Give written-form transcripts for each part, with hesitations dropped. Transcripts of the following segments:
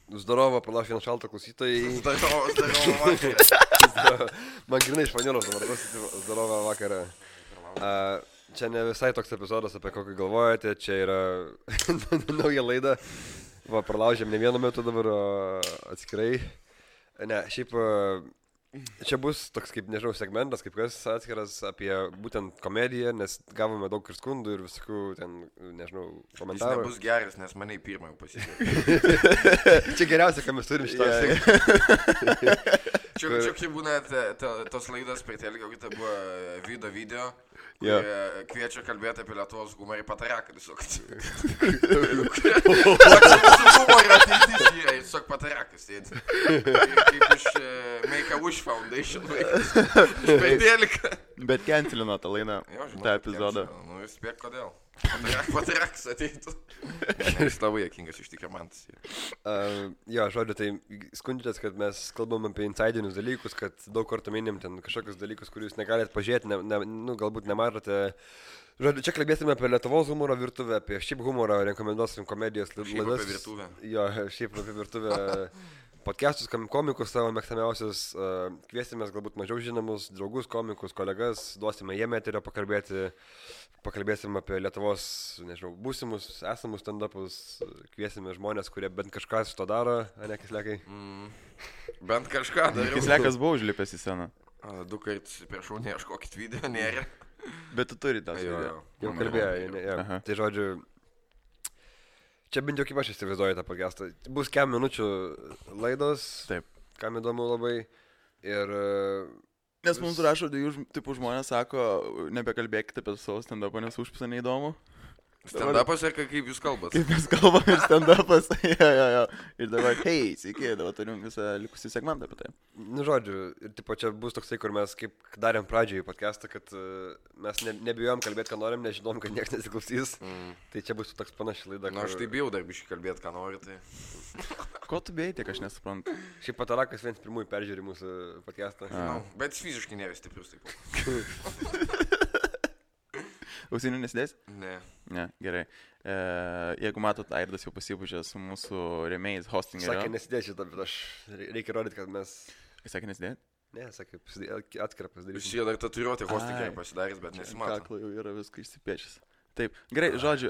Zdarova, palauk vieną šaltą klausytojai. Man grinai iš Vanilos dabar klausyti Zdarova vakarą. Čia ne visai toks epizodas, apie kokį galvojate, čia yra nauja laida. Va, pralaužėm ne vienu metu dabar atskirai. Ne, šiaip čia bus toks kaip, nežinau, segmentas, kaip kas atskiras apie būtent komediją, nes gavome daug ir skundų ir visokių ten, nežinau, komentarų. Jis nebus geras, nes mane į pirmą jau pasisekė. Čia geriausia, ką mes turim šitą. Čia kaip būna tos laidos prie telekio, kai tai buvo video, kviečia kalbėti apie Lietuvos humorą ir pataraką tiesiog. Humorą ateitis yra, tiesiog patarakas sėdi. Kaip iš Make-A-Wish Foundation vaikas. Iš per teliką. Bet cancelino tą laidą, tą epizodą. Nu, vis spėk kodėl. Patarakas ateitų. Jis labai jokingas iš tikrųjų man tas. Jo, žodžiu, tai skundžiatės, kad mes kalbam apie insidinius dalykus, kad daug kartų minim ten kažkokius dalykus, kurių jūs negalite pažiūrėti, galbūt nematote. Žodžiu, čia kalbėsime apie Lietuvos humoro virtuvę, apie šiaip humorą, rekomenduosim komedijos laidas. Šiaip apie virtuvę. Jo, šiaip apie virtuvę. Podcastus, komikus savo mėgstamiausius, kviesimės galbūt mažiau žinomus, draugus, komikus, kolegas, duosime jiem eterio pakalbėsim apie Lietuvos, nežinau, būsimus, esamus stand-upus, kviesime žmonės, kurie bent kažką su to daro, ne Kislekai? Bent kažką dariau. Kislekas buvo užlipęs į sceną. 2 kartus priešau, neieškokit video, nėra. Bet tu turi tą video. Jau kalbėjo, tai žodžiu. Čia bent jau kaip aš įsivaizduoju tą podcastą. Bus kem minučių laidos, taip, kam įdomu labai. Ir... Nes mums rašo, tipų žmonės sako, nebekalbėkite apie savo stand-upą, nes užpisa neįdomu. Stand-upas ir kaip jūs kalbat? Kaip mes kalbame stand-upas, jo. Ir dabar, hei, sveiki, dabar turim visą likusį segmentą apie tai. Nu, žodžiu, ir tipo čia bus toksai, kur mes kaip darėm pradžiai podcastą, kad mes nebijom kalbėti, ką norim, nežinom, kad niekas nesiklausys. Tai čia bus toks panaši laida. Na, aš tai bijau dar biškai kalbėti, ką nori, tai... Ko tu bijai, tiek aš nesuprantu. Šiaip Patarakas vienas pirmųjų peržiūri mūsų podcastą. Bet jis fiziškai nėra stiprus taip. Ausinių nesidės? Ne. Ne, gerai. Jeigu matot, Airdas jau pasipužė su mūsų rėmėjais hostingerio. Sakė nesidės šitą, bet aš reikia rodyti, kad mes... Sakė nesidės? Ne, sakė, atskirą pasidaryti. Jūs jie dar tatuiruoti hostingerį pasidarys, bet nesimato. Kaklo jau yra viską išsipiešęs. Taip, gerai, žodžiu,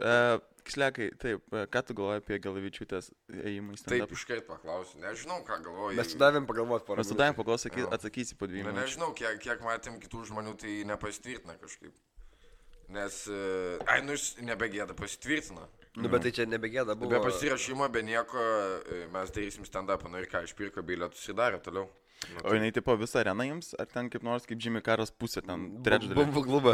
Kislekai, taip, ką tu galvoji apie Galavičiūtės ėjimą į stand-up? Taip, iškart paklausiu, nežinau, ką galvoju. Mes sudavėm pagalvoti porą. Mes sudavėm pagalvoti, atsakysi po 2 minučių. Nežinau, kiek matėm kitų žmonių, tai nepasitvirtina kažkaip. Nes, jis nebegėda pasitvirtina. Nu, bet tai čia nebegėda buvo. Be pasirašymo, be nieko, mes darysim stand-upą, nu ir ką, išpirko bilietus ir darė toliau. O jinai tipo visą areną jums, ar ten kaip nors kaip Jimmy Caras pusė, ten trečdalį? Bumbu klubą.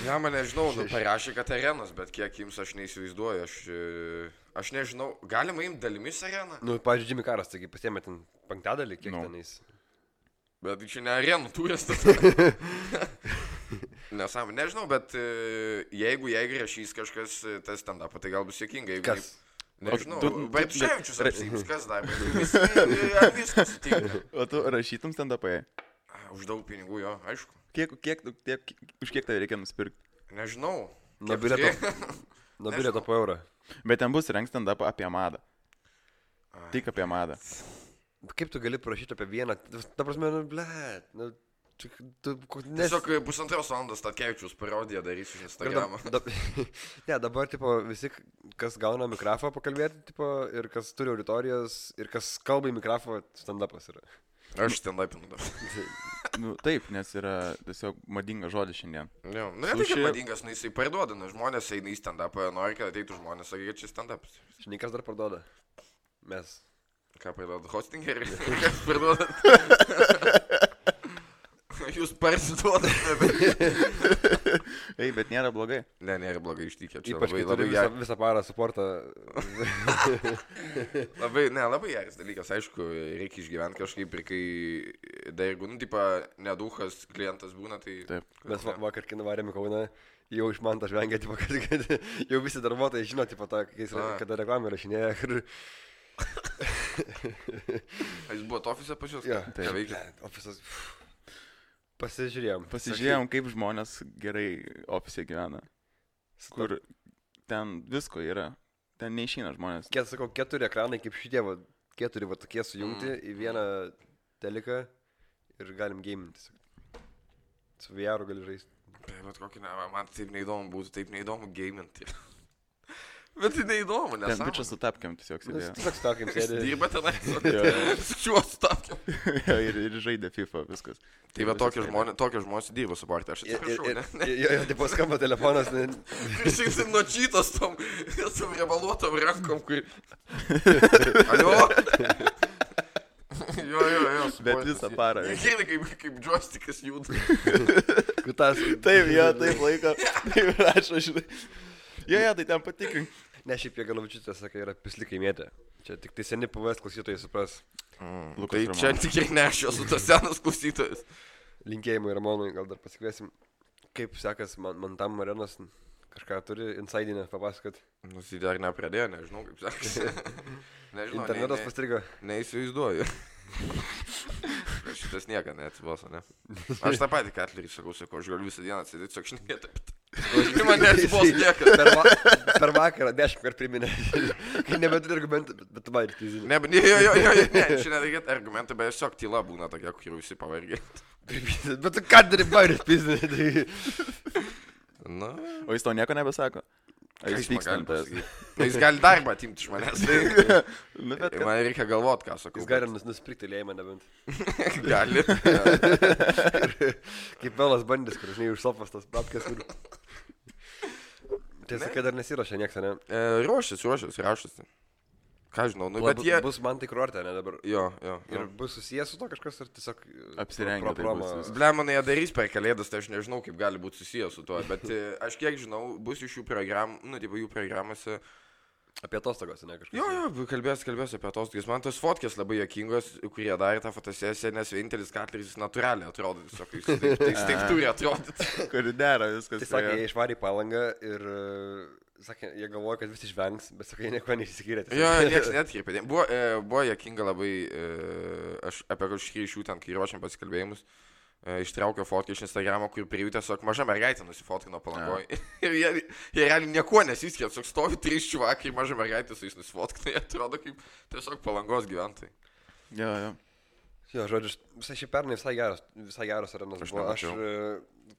Ja, man nežinau, parašė, kad arenos, bet kiek jums aš neįsivaizduoju, aš nežinau, galima imti dalimis areną? Nu, pavyzdžiui, Jimmy Caras, taigi pasiėmė ten 5/5, kiek tenais. Bet čia ne arenų turas. Nesąmonė, nežinau, bet jeigu rašys kažkas tas stand-upą, tai gal bus sėkinga. Kas? Nežinau, Baipševičius apsiims, kas dar, viskas tinka. O tu rašytum stand-upą? Už daug pinigų, jo, aišku. Už kiek tai reikia nusipirkti? Nežinau. Nuo bilieto po eurą. Bet ten bus rengs stand-upą apie madą. Tik apie madą. Kaip tu gali parašyti apie vieną? Ta prasme, blėt, Tiesiog 1,5 valandos Statkevičius parodiją darysiu iš Instagramą. Ne, dabar, tipo, visi, kas gauna mikrofą pakalbėti, tipo, ir kas turi auditorijas, ir kas kalba į mikrofą, stand-upas yra. Aš stand-upinu dabar. Nu, taip, nes yra tiesiog madingas žodis šiandien. Jo, nu, ne tai, kad madingas, nu, jisai parduoda, nu, žmonės eina į stand-upą, nori, kad ateitų žmonės, sakė, kad čia stand-upas. Žinai, kas dar parduoda? Mes. Ką parduoda? Hostingerį? Kas parduoda? Jūs parsiduodate, bet... Ei, bet nėra blogai. Ne, nėra blogai ištikė. Ypač, kai turi visą parą suportą. Labai geras dalykas, aišku, reikia išgyventi kažkaip ir kai dar jeigu, nu, tipo, neduhas klientas būna, tai... Taip. Mes vakar, kai nuvarėm į Kauną, jau iš man tą žvengia, tipo, kad jau visi darbuotojai žino, tipo, kada reklamą rašinėja. Jūs buvot ofise pas jūs? Ja, tai veikia. Ofisas... Pasižiūrėjom, kaip žmonės gerai ofise gyvena. Kur ten visko yra. Ten neišeina žmonės. Sakau, 4 ekranai kaip šitie, keturi va tokie sujungti į vieną teliką ir galim gaminti. Su VR gali žaisti. Bet kokį ne, man taip neįdomu būtų, taip neįdomu gaminti. Bet tai neįdomu, nes... Ten bičias su tapkiam tiesiog sėdėjo. Tiesiog tapkiam sėdėjo. Dirba tenai, su šiuo su tapkiam. ir žaidė FIFA, viskas. Tai va tokie žmonės dirba su partija, aš atsiprašau, ne? Jo, tipo skamba telefonas. Išsinksim nuo čytos tom riebaluotom rankom, kur... Alio? Jo. Bet visą parą. Girdi, kaip joystickas juda. Taip, jo, taip laiko. Taip rašo, žinai. Jo, tai ten patikrink. Ne, šiaip jie Galavičiūtė sakai, yra pislikai mėtė. Čia tik tai seni PVS klausytojai supras. Tai čia tikrai ne aš esu tas senas klausytojas. Linkėjimai Ramonui, gal dar pasikviesim. Kaip sekas man tam Marenas kažką turi insidinę papasakot? Tai dar nepradėjo, nežinau kaip sekasi. Nežinau, internetas pastrigo. Neįsivaizduoju. Šitas nieka neatsiboso, ne? Aš tą patį Katlerį sakau, aš galiu visą dieną atsėdėti, tiesiog šnekėti. Ir man neatsibos niekas. Per vakarą 10 kartų priminė. Kai nebeturi argumentų, bet tu man ir tyzinė. Ne, šiandien reikėtų argumentų, bet tiesiog tyla būna tokia, kur visi pavargė. Bet tu ką darai bairės pizinė? Na. O jis to nieko nebesako? Jis pykstantas. Jis gali darbą atimti iš manęs. Man reikia galvot, ką sakau. Jis gali nusipirkti lėjimą nebent. Gali. Kaip Belas bandys, kur žinai už sofas tas papkės. Tiesa, kad dar nesiruošia nieks, ne? Ruošiasi. Ką žinau, nu bet jie... Bus man tai kurortė, ne dabar? Jo. Ir bus susijęs su to kažkas ar tiesiog... Apsirengę tai bus. Blemonai jie darys per kalėdas, tai aš nežinau, kaip gali būti susijęs su to, bet aš kiek žinau, bus iš jų programų, nu, tipo jų programuose... Apie atostogos, ne kažkas? Jo, kalbės apie atostogas. Man tos fotkės labai juokingos, kurie darė tą fotosesiją, nes vienintelis Katleris natūraliai atrodo, tiesiog taip turi atrodyti. Kur dera viskas. Tai sakė, jie išvarė į Palangą ir, sakė, jie galvoja, kad visi išvengs, bet sakė, nieko neišsiskyrė. Jo, nieks netkreipė. Buvo juokinga labai, aš apie kažkį iš jų ten, kai ruošiam pasikalbėjimus, ištraukė fotkę iš Instagramo, kur prie jų tiesiog maža mergaitė nusifotkino Palangoje. Ir jie realiai nieko nesiskiria, tiesiog stovi 3 čiuvakai ir maža mergaitė su jais nusifotkino, jie atrodo kaip tiesiog Palangos gyventojai. Jo. Jo, žodžiu, visai šį pernai visai geras arenas buvo. Aš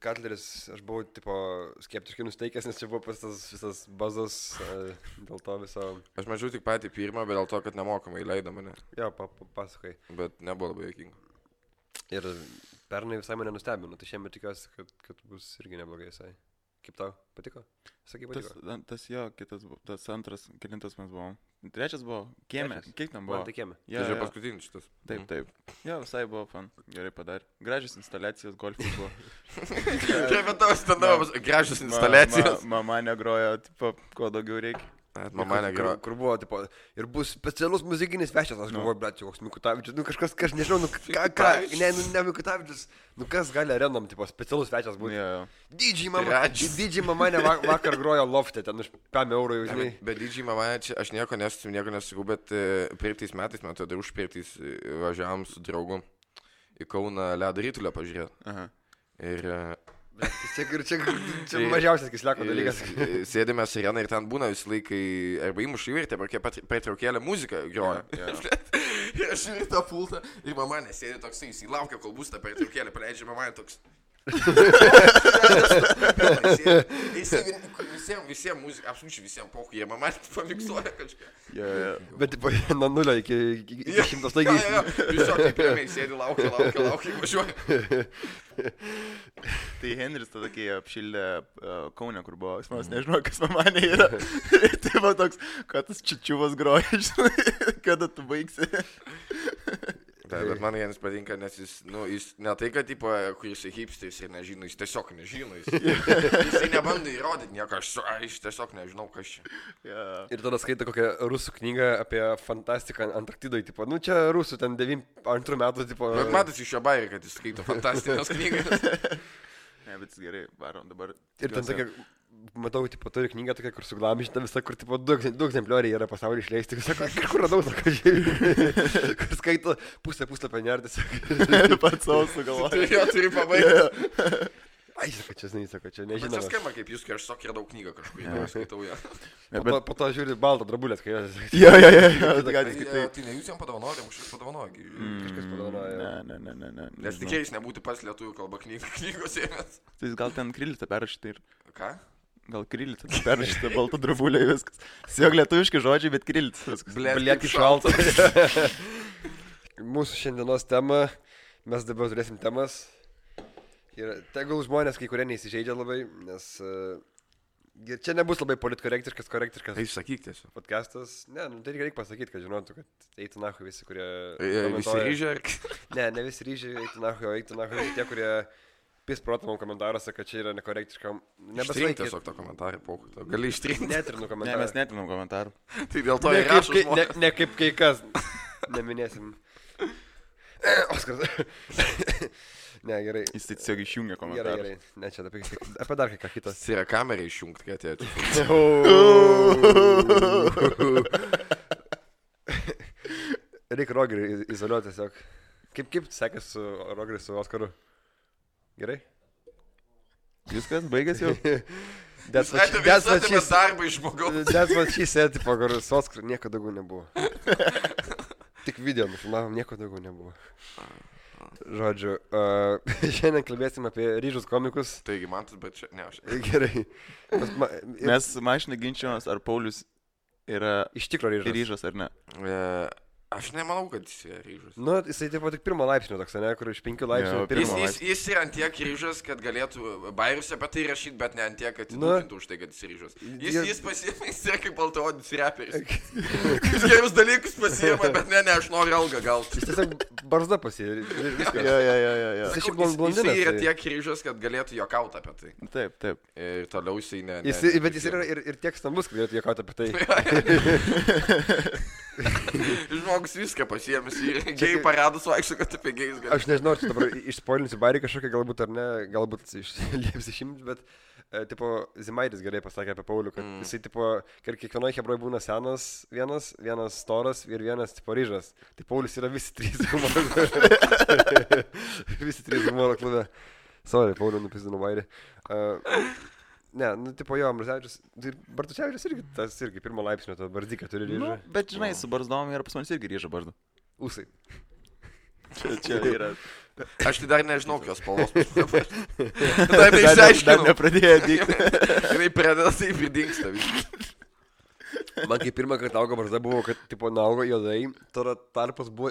Katleris, aš buvau tipo skeptiškai nusteikęs, nes čia buvo pas tas visas bazas dėl to viso... Aš mačiau tik patį pirmą, bet dėl to, kad nemokamai leido mane. Jo, pasakai. Bet nebuvo labai juokinga. Ir pernai visai mane nustebino, tai šiemet tikiuosi, kad bus irgi neblogai visai. Kaip tau? Patiko? Sakai, patiko? Tas jo, tas antras, kelintas mes buvom. Trečias buvo kieme. Kiek tam buvo? Man tai kieme. Tai čia paskutinis šitas. Taip. Jo, visai buvo fan. Gerai padarė. Gražios instaliacijos golfui buvo. Kaip tavo standartas, gražios instaliacijos. Mama negrojo, tipo, ko daugiau reikia. Mama negrojo. Kur buvo, tipo, ir bus specialus muzikinis svečias, aš galvoju, bet čia koks Mikutavičius, nu kažkas, nežinau, nu ką, ne Mikutavičius, nu kas gali arenom, tipo, specialus svečias būti. DJ mama vakar grojo lofte, ten už 5 eurų jau, žinai. Bet DJ mama, čia aš nieko nesakau, bet praeitais metais, man atrodo, užpraeitais važiavom su draugu į Kauną ledo ritulio pažiūrėti. Ir... Čia mažiausias kisleko dalykas. Sėdėme sireną ir ten būna visą laiką arba įmuša įvirtė, arba pertraukėlę muziką groja. Ir aš žiūrėjau tą pultą ir mama nesėdė toksai, jis įlaukia, kol bus tą pertraukėlę, paleidžia mama toks. Visiems muzika, absoliučiai visiems pochų, jie mama pamiksuoja kažką. Bet nuo 0 iki 100 staigiai. Tiesiog taip ramiai sėdi, laukia, važiuoja. Tai Henris tada, kai apšildė Kaune, kur buvo, aš nežinau, kas mamanė yra. Tai buvo toks, kad tas čičiuvas groja, žinai, kada tu baigsi. Bet man Janis patinka, nes jis ne tai, kad tipo, kur jisai hipsteris ir nežino, jis tiesiog nežino, jisai nebando įrodyti nieko, aš tiesiog nežinau, kas čia. Ir tada skaito kokią rusų knygą apie fantastiką Antarktidoje, tipo, nu čia rusų ten 92 metų, tipo... Bet matas iš jo bairį, kad jis skaito fantastinės knygas. Ne, bet jis gerai, varom dabar. Ir ten tokia... Matau, tipo, turi knygą tokia, kur suglamišta visą, kur, tipo, 2 egzemplioriai yra pasaulyje išleisti. Kur radau, sako, žiūrėjau. Kur skaito pusę puslapio nerdės. Pats savo sugalvoju. Jo, turi pabaigti. Ai, sako, čia Bet nežinau. čia skamba kaip jūs, kai aš sakė daug knygą kažkur, tai skaitau ją. Po to žiūri baltą drabulės, kai jos... Jo. Tai ne jūs jam padovanojate, kažkas padovanoja. Kažkas padovanoja. Ne. Nes tikrai jis nebūtų pats lietuvių kalba knygos ėmės. Tai jis gal ten krylytą perrašyti ir... Ką? Gal krylytą perrašyti baltą drabulę ir viskas. Siog lietuviški žodžiai, bet krylytas viskas. Bliek šalta. Mūsų šiandienos tema, mes dabar turėsim temas. Ir tegul žmonės kai kurie neįsižeidžia labai, nes čia nebus labai politkorektiškas Tai sakyk tiesiog. podcastas. Ne, tai reikia pasakyti, kad žinotų, kad eitų nahui visi, kurie... Visi ryžė? Ne visi ryžė, eitų nahui, o eitų nahui tie, kurie pisprotamam komentaruose, kad čia yra nekorektiškam. Ištrink tiesiog tą komentarą, pokuto. Gali ištrinti. Netrinu Ne, komentarą. mes netinam komentarų. Tai dėl to ir rašo žmonės. Ne kaip kai kas. Neminėsim. Oskaras. Ne, gerai. Jis tai tiesiog išjungia komentarus. Gerai. Ne, čia apie dar kai ką kitą. Tai yra kamerą išjungti, kad atėjo. Reikia Rogerį izoliuoti tiesiog. Kaip sekės su Rogeriu, su Oskaru? Gerai? Viskas, baigėsi jau. That's darbą iš žmogaus. That's what she said, tipo, kur su Oskaru nieko daugiau nebuvo. Tik video nufilmavom, nieko daugiau nebuvo. Žodžiu, šiandien kalbėsim apie ryžus komikus. Taigi man tas, bet čia, ne, aš. Gerai. Mes mašinai ginčiamės, ar Paulius yra Iš tikro ryžas ar ne. Aš nemanau, kad jis yra ryžas. Nu, jisai taip pat tik pirmo laipsnio toks, ne, kur iš 5 laipsnių Jo, pirmo laipsnio. Jis yra ant tiek ryžas, kad galėtų bairius apie tai rašyti, bet ne ant tiek, kad įdūkintų už tai, kad jis ryžas. Jis pasiėmė, jis yra kaip baltaodis reperis. Jis gerus dalykus pasiėmė, bet ne, aš noriu algą gauti. Jis tiesiog barzda pasiėmė. Jo. Jis šiaip blondinas. Jis yra tiek ryžas, kad galėtų juokauti apie tai. Taip. Ir toliau jisai ne. Bet jis yra ir tiek stambus, kad galėtų juokauti apie tai. Žmogus viską pasiėmęs ir gėjai paradus vaikščiu, kad apie gėjus gali. Aš nežinau, ar čia dabar išspoilinsiu bairį kažkokią, galbūt ar ne, galbūt lieps išimti, bet tipo, Zimaitis gerai pasakė apie Paulių, kad jisai, tipo, kiekvienoje hebroje būna senas vienas storas ir vienas, tipo, ryžas. Tai Paulius yra visi trys humoro klube. Visi trys humoro klube. Sorry, Paulių nupizdinu bairį. Ne, nu, tipo, jo, Ambrazevičius, Bartusevičius irgi, tas irgi pirmo laipsnio, to bardyką turi ryžą. Nu, bet žinai, su barzdom yra pas manis irgi ryža barzda. Usai. Čia yra. Aš tai dar nežinau, kokios spalvos. Dar neišsiaiškinau. Dar nepradėjo dykti. Jinai pradeda taip ir dingsta viskas. Man kai pirmą kartą augo barzda buvo, kad, tipo, naugo juodai, tada tarpas buvo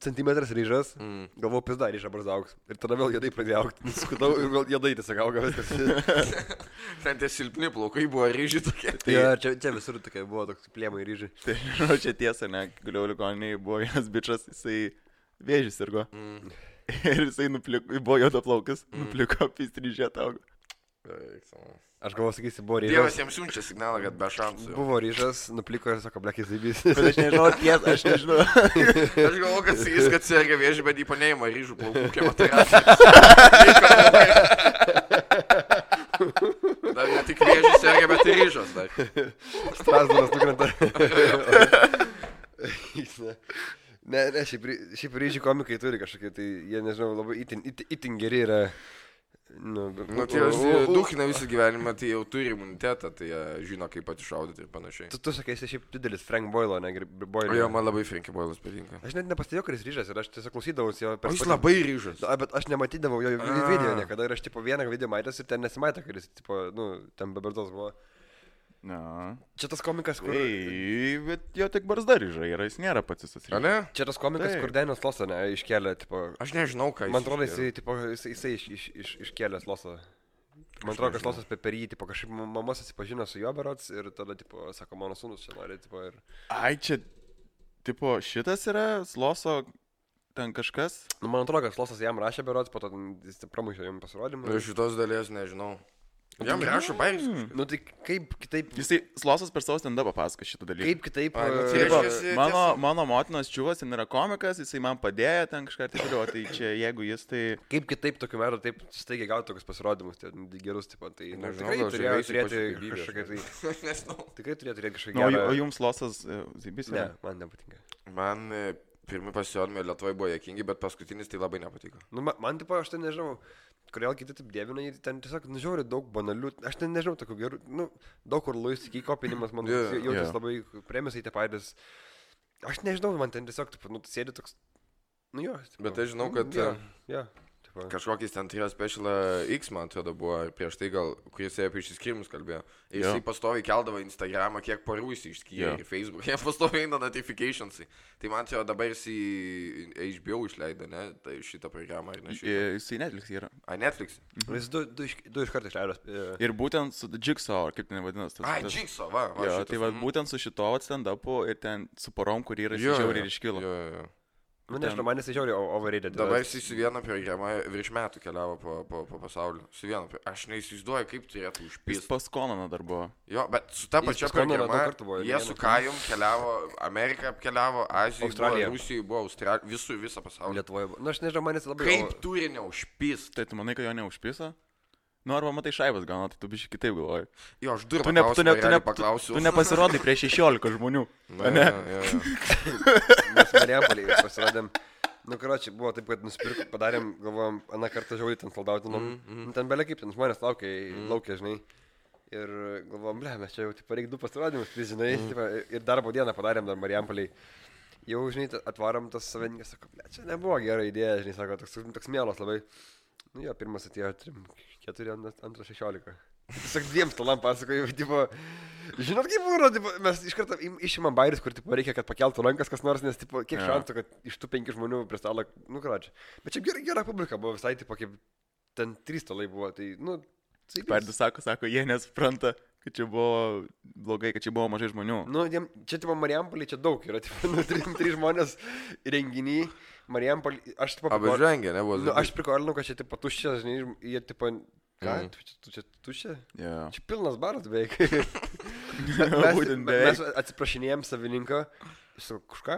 centimetras ryžas, galvojau, pizda, ryža barzda augs. Ir tada vėl juodai pradėjo augti. Skutau ir vėl juodai tiesiog auga viskas. Ten tie silpni plaukai buvo ryžiai tokie. Ja, čia visur tokie buvo toks plėmai ryžiai. Tai, žinau, čia tiesa, ne, guliau ligoniniai, buvo vienas bičas, jisai vėžys sirgo. Ir jisai buvo juodaplaukas, nupliko, pistryžė augo. Aš galvoju, sakysi, buvo ryžas. Dievas jiems siunčia signalą, kad be šansų. Buvo ryžas, nupliko ir sako, blekis zaibys. Bet aš nežinau, tiesa, aš nežinau. Aš galvoju, kad sakys, kad serga vėžį, bet jį paneima ryžų plaukų chemoterapiją. Dar ne tik vėžį serga, bet ir ryžas dar. Strasdaras nukrenta. Ne, šiaip ryžių komikai turi kažkokie, tai jie, nežinau, labai itin geri yra. Nu, tai duhina visą gyvenimą, tai jau turi imunitetą, tai jie žino, kaip patišaudyti ir panašiai. Tu sakai, esi šiaip didelis Frank Boyle, ne Boyle. Jo, man labai Frank Boyle'as patinka. Aš net nepastebėjau, kad jis ryžas ir aš tiesiog klausydavausi jo per... Jis labai ryžas. Bet aš nematydavau jo video niekada ir aš tipo vieną video matęs ir ten nesimatė, kad jis tipo, nu, ten be barzdos buvo. Na. Čia tas komikas, kur... Bet jo tik barzda ryža yra, jis nėra pats jis ryžas. Ne? Čia tas komikas, kur Daniels Losą, ne, iškėlė, tipo... Aš nežinau, ką jis... Man atrodo, jisai iškėlęs Losą. Man atrodo, kad Losas per jį, tipo, kažkaip mama susipažino su juo berods ir tada, tipo, sako, mano sūnus čia nori, tipo, ir... Ai, čia, tipo, šitas yra Loso ten kažkas? Nu, man atrodo, kad Losas jam rašė berods, po to jis pramušė jam pasirodymą. Šitos dalies nežinau. Jam rašo bairis. Nu tai kaip kitaip... Jisai Losas per savo stand-upą pasako šitą dalyką. Kaip kitaip... Mano motinos čiuvas, jis yra komikas, jisai man padėjo ten kažką ir taip toliau, tai čia jeigu jis tai... Kaip kitaip tokiu metu taip staigiai gauti tokius pasirodymus, tai gerus, tipo, tai... Nežinau, tikrai turėjo turėti kažkokią tai... Tikrai turėjo turėti kažkokią gerą... O jums Losas Zaibys? Ne, man nepatinka. Man pirmi pasirodymai Lietuvoje buvo juokingi, bet paskutinis tai labai nepatiko. Nu, man tipo, aš tai nežinau, kodėl kiti taip dievina, ten tiesiog, žiūri, daug banalių, aš ten nežinau, tokių gerų, daug kur Luis iki kopinimas, man jautis labai premisai tie patys. Aš nežinau, man ten tiesiog, tipo, sėdi toks, jo. Tipo, bet aš žinau, kad... Jo. Kažkokiais ten turėjo Special X, man atrodo, buvo prieš tai gal, kuris apie išsiskirimus kalbėjo. Ir jisai pastoviai keldavo Instagramą, kiek parų jis išskyrė ir Facebook. Jie pastoviai eina notificationsai. Tai man atrodo, dabar jisai HBO išleido, ne? Tai šitą programą, ar ne šitą? Jisai Netflix yra. Netflix? Jis du iš karto išleido. Ir būtent su Jigsaw, kaip ten vadinasi. Jigsaw, va. Jo, tai va, būtent su šito stand-upu ir ten su porom, kur yra žiauriai ir iškilo. Jo. Nu, nežinau, man jisai žiauriai overrated. Dabar jisai su viena programa virš metų keliavo po pasaulį. Su viena. Aš neįsivaizduoju, kaip turėtų užpįsti. Jis pas Konaną dar buvo. Jo, bet su ta pačia programa jie su Kajum keliavo, Ameriką apkeliavo, Aziją, Rusijoje buvo, Australijoje, visą pasaulį. Lietuvoje buvo. Nu, aš nežinau, man jis labai... Kaip turi neužpįsti? Tai tu manai, kad jo neužpįsa? Nu, arba matai šaibas gauna, tai tu biškai kitaip galvoji. Jo, aš durą paklausiu. Tu nepasirodai prie 16 žmonių. Ne? Mes Marijampolėj pasirodėm. Nu, karočiui, buvo taip, kad nusipirkom, padarėm, galvojom, aną kartą žiauriai ten soldautinom. Ten belia kaip, ten žmonės laukia, žinai. Ir galvojom, mes čia jau, tipo, reikia 2 pasirodymus, žinai. Ir darbo dieną padarėm dar Marijampolėj. Jau, žinai, atvarom tas savininkas, sako, čia nebuvo gera idėja, žinai, sako, toks mielas labai. Nu jo, pirmas atėjo 3, 4, antras 16. Tiesiog 2 stalam pasakoju, tipo, žinot kaip buvo, tipo, mes iš karto išimam bairius, kur tipo, reikia, kad pakeltų rankas kas nors, nes tipo, kiek šansų, kad iš tų 5 žmonių prie stalo, nu kračiu. Bet čia gera publika buvo, visai tipo, kaip ten 3 stalai buvo, tai, nu, Perdus sako, jie nesupranta, kad čia buvo blogai, kad čia buvo mažai žmonių. Nu, čia tipo Marijampolė, čia daug yra, tipo, nu, 3 žmonės renginį. Marijampolė, aš tipo... Apžengė, nebuvo. Nu, aš prikolinau, kad čia tipo tuščia, žinai, jie tipo... Ką? Tu čia tuščia? Yeah. Čia pilnas baras beveik. Būtent beveik. Mes atsiprašinėjom savininką. Jis sako, kažką?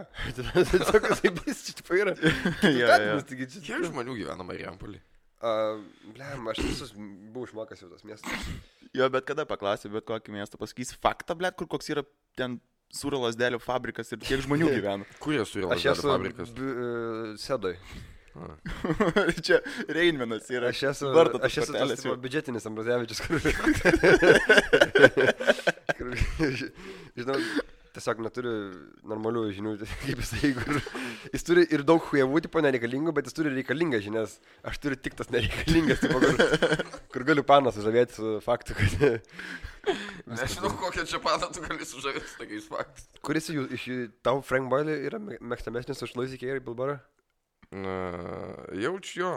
Sako, taip bus, čia tipo yra. Kiek žmonių gyvena Marijampolė? Blem, aš visus buvau išmokęs jau tas miestas. Jo, bet kada paklausė, bet kokį miestą pasakys faktą, blėt, kur koks yra ten sūrio lasdelių fabrikas ir kiek žmonių gyvena. Kur yra sūrio lasdelių fabrikas? Aš esu Sedoj. Čia Reinmenas yra. Aš esu tas biudžetinis Ambrazevičius, kur žinau, tiesiog neturi normalių žinių, kaip jisai, kur jis turi ir daug hujevų, tipo nereikalingų, bet jis turi reikalingas žinias. Aš turiu tik tas nereikalingas, tipo, kur galiu paną sužavėti su faktu, kad... Nežinau, kokią čia paną tu gali sužavėti su tokiais faktais. Kuris iš tau Frank Boyle yra mėgstamesnis už Louis C.K. ir Bill Burr? Jaučiu jo.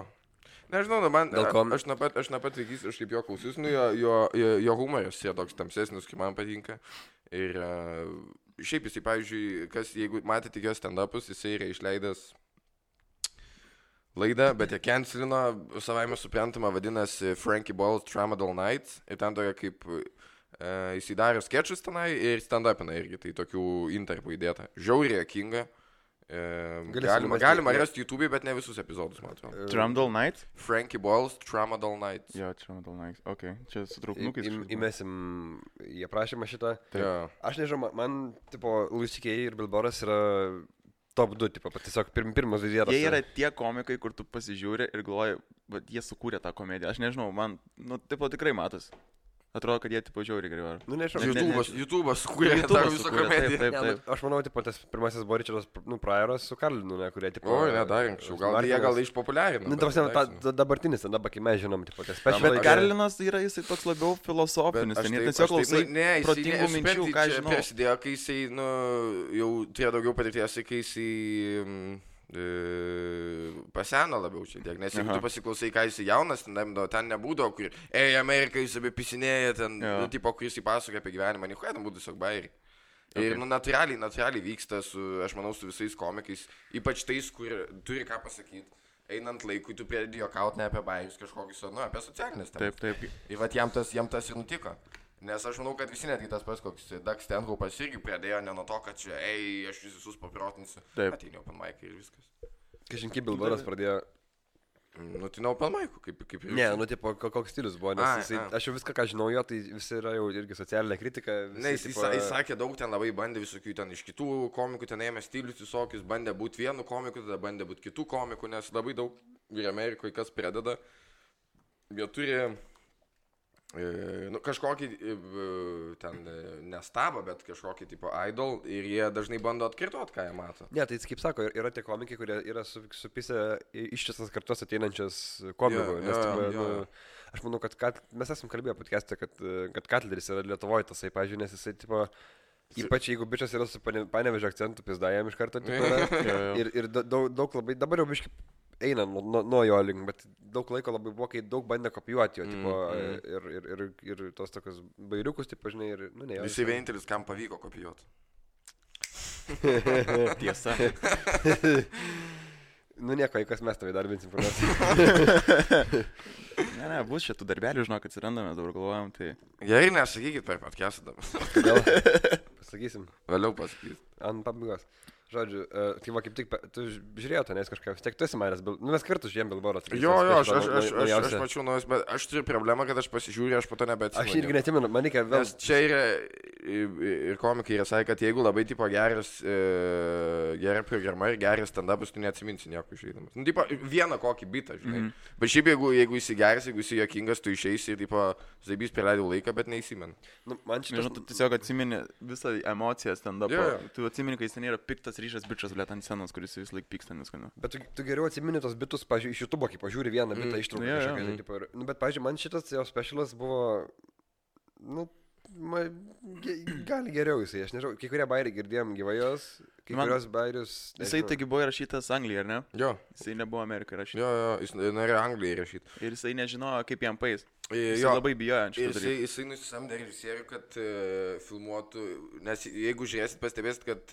Nežinau, man, aš nuo pat vaikys, aš kaip jo klausius, nu, jo humoras yra toks tamsesnis, kaip man patinka. Ir šiaip jisai, pavyzdžiui, jeigu matėte jo stand-upus, jisai yra išleidęs laidą, bet jie cancelino, savaime suprantama, vadinasi Frankie Boyle's Tramadol Nights. Ir ten tokia kaip, jisai darė sketchus tenai ir stand-upina irgi, tai tokių interpų įdėta. Žiauriai juokinga. Galima rasti YouTube, bet ne visus epizodus, man atrodo. Tramadol Nights? Frankie Boyle's Tramadol Nights. Jo, Tramadol Nights, okei. Čia su trauknukais. Įmesim į aprašymą šitą. Aš nežinau, man, tipo, Louis C.K. ir Bill Burras yra top 2, tipo, tiesiog pirmas vizietas. Jie yra tie komikai, kur tu pasižiūri ir galvoji, bet jie sukūrė tą komediją. Aš nežinau, man, nu, tipo, tikrai matos. Atrodo, kad jie tipo žiauriai gerai varo. Nu, nežinau. YouTube'as kūrė tą visą komediją. Taip. Aš manau, tipo, tas pirmasis buvo Richardas, Pryoras su Karlinu, ne, kurie, tipo... O, ne, dar anksčiau. Gal jie išpopuliarino. Nu, ta dabartinis, dabar, kai mes žinom, tipo, tas special. Bet Karlinas yra jisai toks labiau filosofinis. Ten tiesiog klausai protingų minčių, ką žinau. Prasidėjo, kai jisai, nu, jau turėjo daugiau patirties, kai jisai... paseno labiau čia tiek, nes jeigu tu pasiklausai, ką jis jaunas, ten nebūdavo, kur Amerika jis apipisinėja, ten, tipo, kur jis įpasakoja apie gyvenimą, nieko, ten būtų tiesiog bairiai. Ir, nu, natūraliai vyksta, aš manau, su visais komikais, ypač tais, kur turi ką pasakyti. Einant laikui, tu pradedi juokauti ne apie bairius kažkokius, nu, apie socialinės temas. Taip. Ir vat jam tas ir nutiko. Nes aš manau, kad visi netgi tas pats, koks Doug Stanhope'as irgi pradėjo ne nuo to, kad čia, aš visus paprotinsiu. Ateini open mic ir viskas. Kažinki Bill Burras pradėjo Nu, tai Open Mic, kaip ir... Ne, nu, tipo, koks stilius buvo, nes aš jau viską, ką žinau jo, tai visi yra jau irgi socialinė kritika. Visi, Ne, jis sakė daug, ten labai bandė visokių ten iš kitų komikų, ten ėmė stilius visokius, bandė būti vienu komiku, tada bandė būti kitų komikų, nes labai daug ir Amerikoje kas pradeda. Jie turi kažkokį ten nestabą, bet kažkokį tipo idol ir jie dažnai bando atkartot, ką jie mato. Ne, tai kaip sako, yra tie komikai, kurie yra supisę ištisas kartos ateinančias komikų. Aš manau, kad mes esam kalbėję podcast'e, kad Katleris yra Lietuvoje tasai, pažiūrėjau, nes jisai tipo... Ypač jeigu bičias yra su Panevėžio akcentu, pizdajam iš karto. Ir daug labai, dabar jau biškai eina nuo jo link, bet daug laiko labai buvo, kai daug bandė kopijuoti jo, tipo, ir tos tokios bairiukus, tipo, žinai, ir, nu, ne. Visi vienintelis, kam pavyko kopijuoti. Tiesa. Nu nieko, kas mes tavai darbinsim informaciją. Ne, bus šitų darbelių, žinok, atsirandame, dabar galvojam, tai... Gerai, nesakykit per podcast'ą dabar. Kodėl? Pasakysim. Vėliau pasakysit. Ant pabaigos. Žodžiu, tai va kaip tik, tu žiūrėjau to, nes kažką, vis tiek tu esi manęs, nu mes kartu žiūrėjom Bilboros. Jo, aš mačiau nuojus, bet aš turiu problemą, kad aš pasižiūriu, aš po to nebeatsimenu. Aš irgi neatsimenu, man reikia vėl... Nes čia yra, ir komikai yra sakė, kad jeigu labai tipo gera programa ir geras stand-upas, tu neatsiminsi nieko išeidamas. Nu, tipo, vieną kokį bitą, žinai. Bet šiaip jeigu esi geras, jeigu esi juokingas, tu išeisi ir, tipo, zaibys praleidau laiką, bet neįsimenu. Nu, man šitas... Nežinau, tu tiesiog atsimeni visą emociją stand-upą. Tu atsimeni, kai jis ten yra piktas ryšas bičas, blėt, ant scenos, kuris vis laik pyksta, neskonio. Bet tu geriau atsimeni tos bitus, pažiūrėjau, iš YouTube, kai pažiūri vieną bitą ištrauką kažkokią. Tipo, nu, bet, pažiūrėjau, man šitas jo specialas buvo, nu, gali geriau jisai, aš nežinau, kai kurie bairiai girdėjom gyvajos, kai kurios bairius... Jisai taigi buvo įrašytas Anglijoje, ar ne? Jo. Jisai nebuvo Amerikoje įrašytas. Jo, jis norėjo Anglijoje įrašyti. Ir jisai nežinojo, kaip jam pais. Jisai labai bijojo ant šito dalyko. Jisai nusisamdė režisierių, kad filmuotų, nes jeigu žiūrėsit, pastebėsit, kad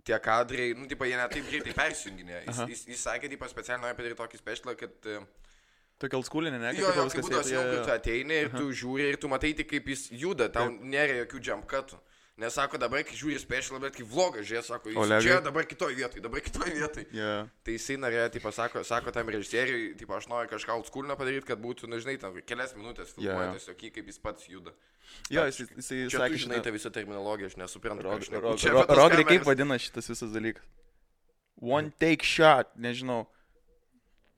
tie kadrai, nu, tipo, jie netaip greitai persijunginė. Jis sakė, tipo, specialiai nori padaryti tokį specialą, kad... Tokia oldschool'inė, ne? Jo, kaip būdas jau, kai tu ateini ir tu žiūri ir tu matai tik, kaip jis juda, tau nėra jokių jump cutų. Nes sako, dabar, kai žiūri specialą, bet kai vlogą žiūrė, sako, jis čia dabar kitoj vietoj. Yeah. Tai jisai norėjo, tipo, sako tam režisieriui, tipo, aš noriu kažką oldschool'inio padaryti, kad būtų, nu, žinai, tam kelias minutės filmuoja tiesiog, kaip jis pats juda. Jo, jisai čia tu žinai tą visą terminologiją, aš nesuprantu. Rogri, kaip vadina šitas visas dalykas? One take shot, nežinau.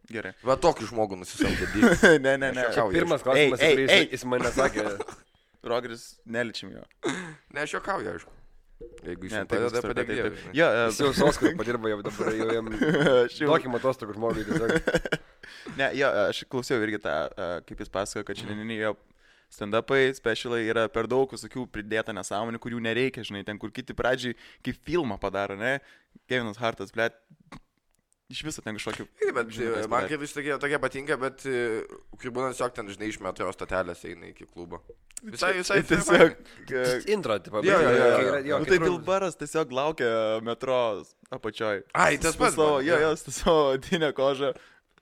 Gerai. Va tokį žmogų nusisamdė. Ne. Pirmas klausimas, jis mane sakė. Rogris, neličim jo. Ne, aš juokauju, aišku. Jeigu jis padeda, padėkdėjau. Jis jau Soskai padirba, jau dabar jau jam tokį matostokų žmogui tiesiog. Ne, jo, aš klausiau irgi tą, kaip jis pasakojo, kad šiandieniniai jo stand-upai, specialai yra per daug visokių pridėta nesąmonių, kurių nereikia, žinai, ten kur kiti pradžiai kaip filmą padaro, ne? Kevinas Hartas, blėt. Iš viso ten kažkokių... Bet man kaip vis tokie patinka, bet kai būna tiesiog ten, žinai, iš metro stotelės eina iki klubo. Visai tiesiog... Intro, tipo. Jo, tai Bilbaras tiesiog laukia metro apačioj. Ai, tas pats. Jo, su savo odinę kožą,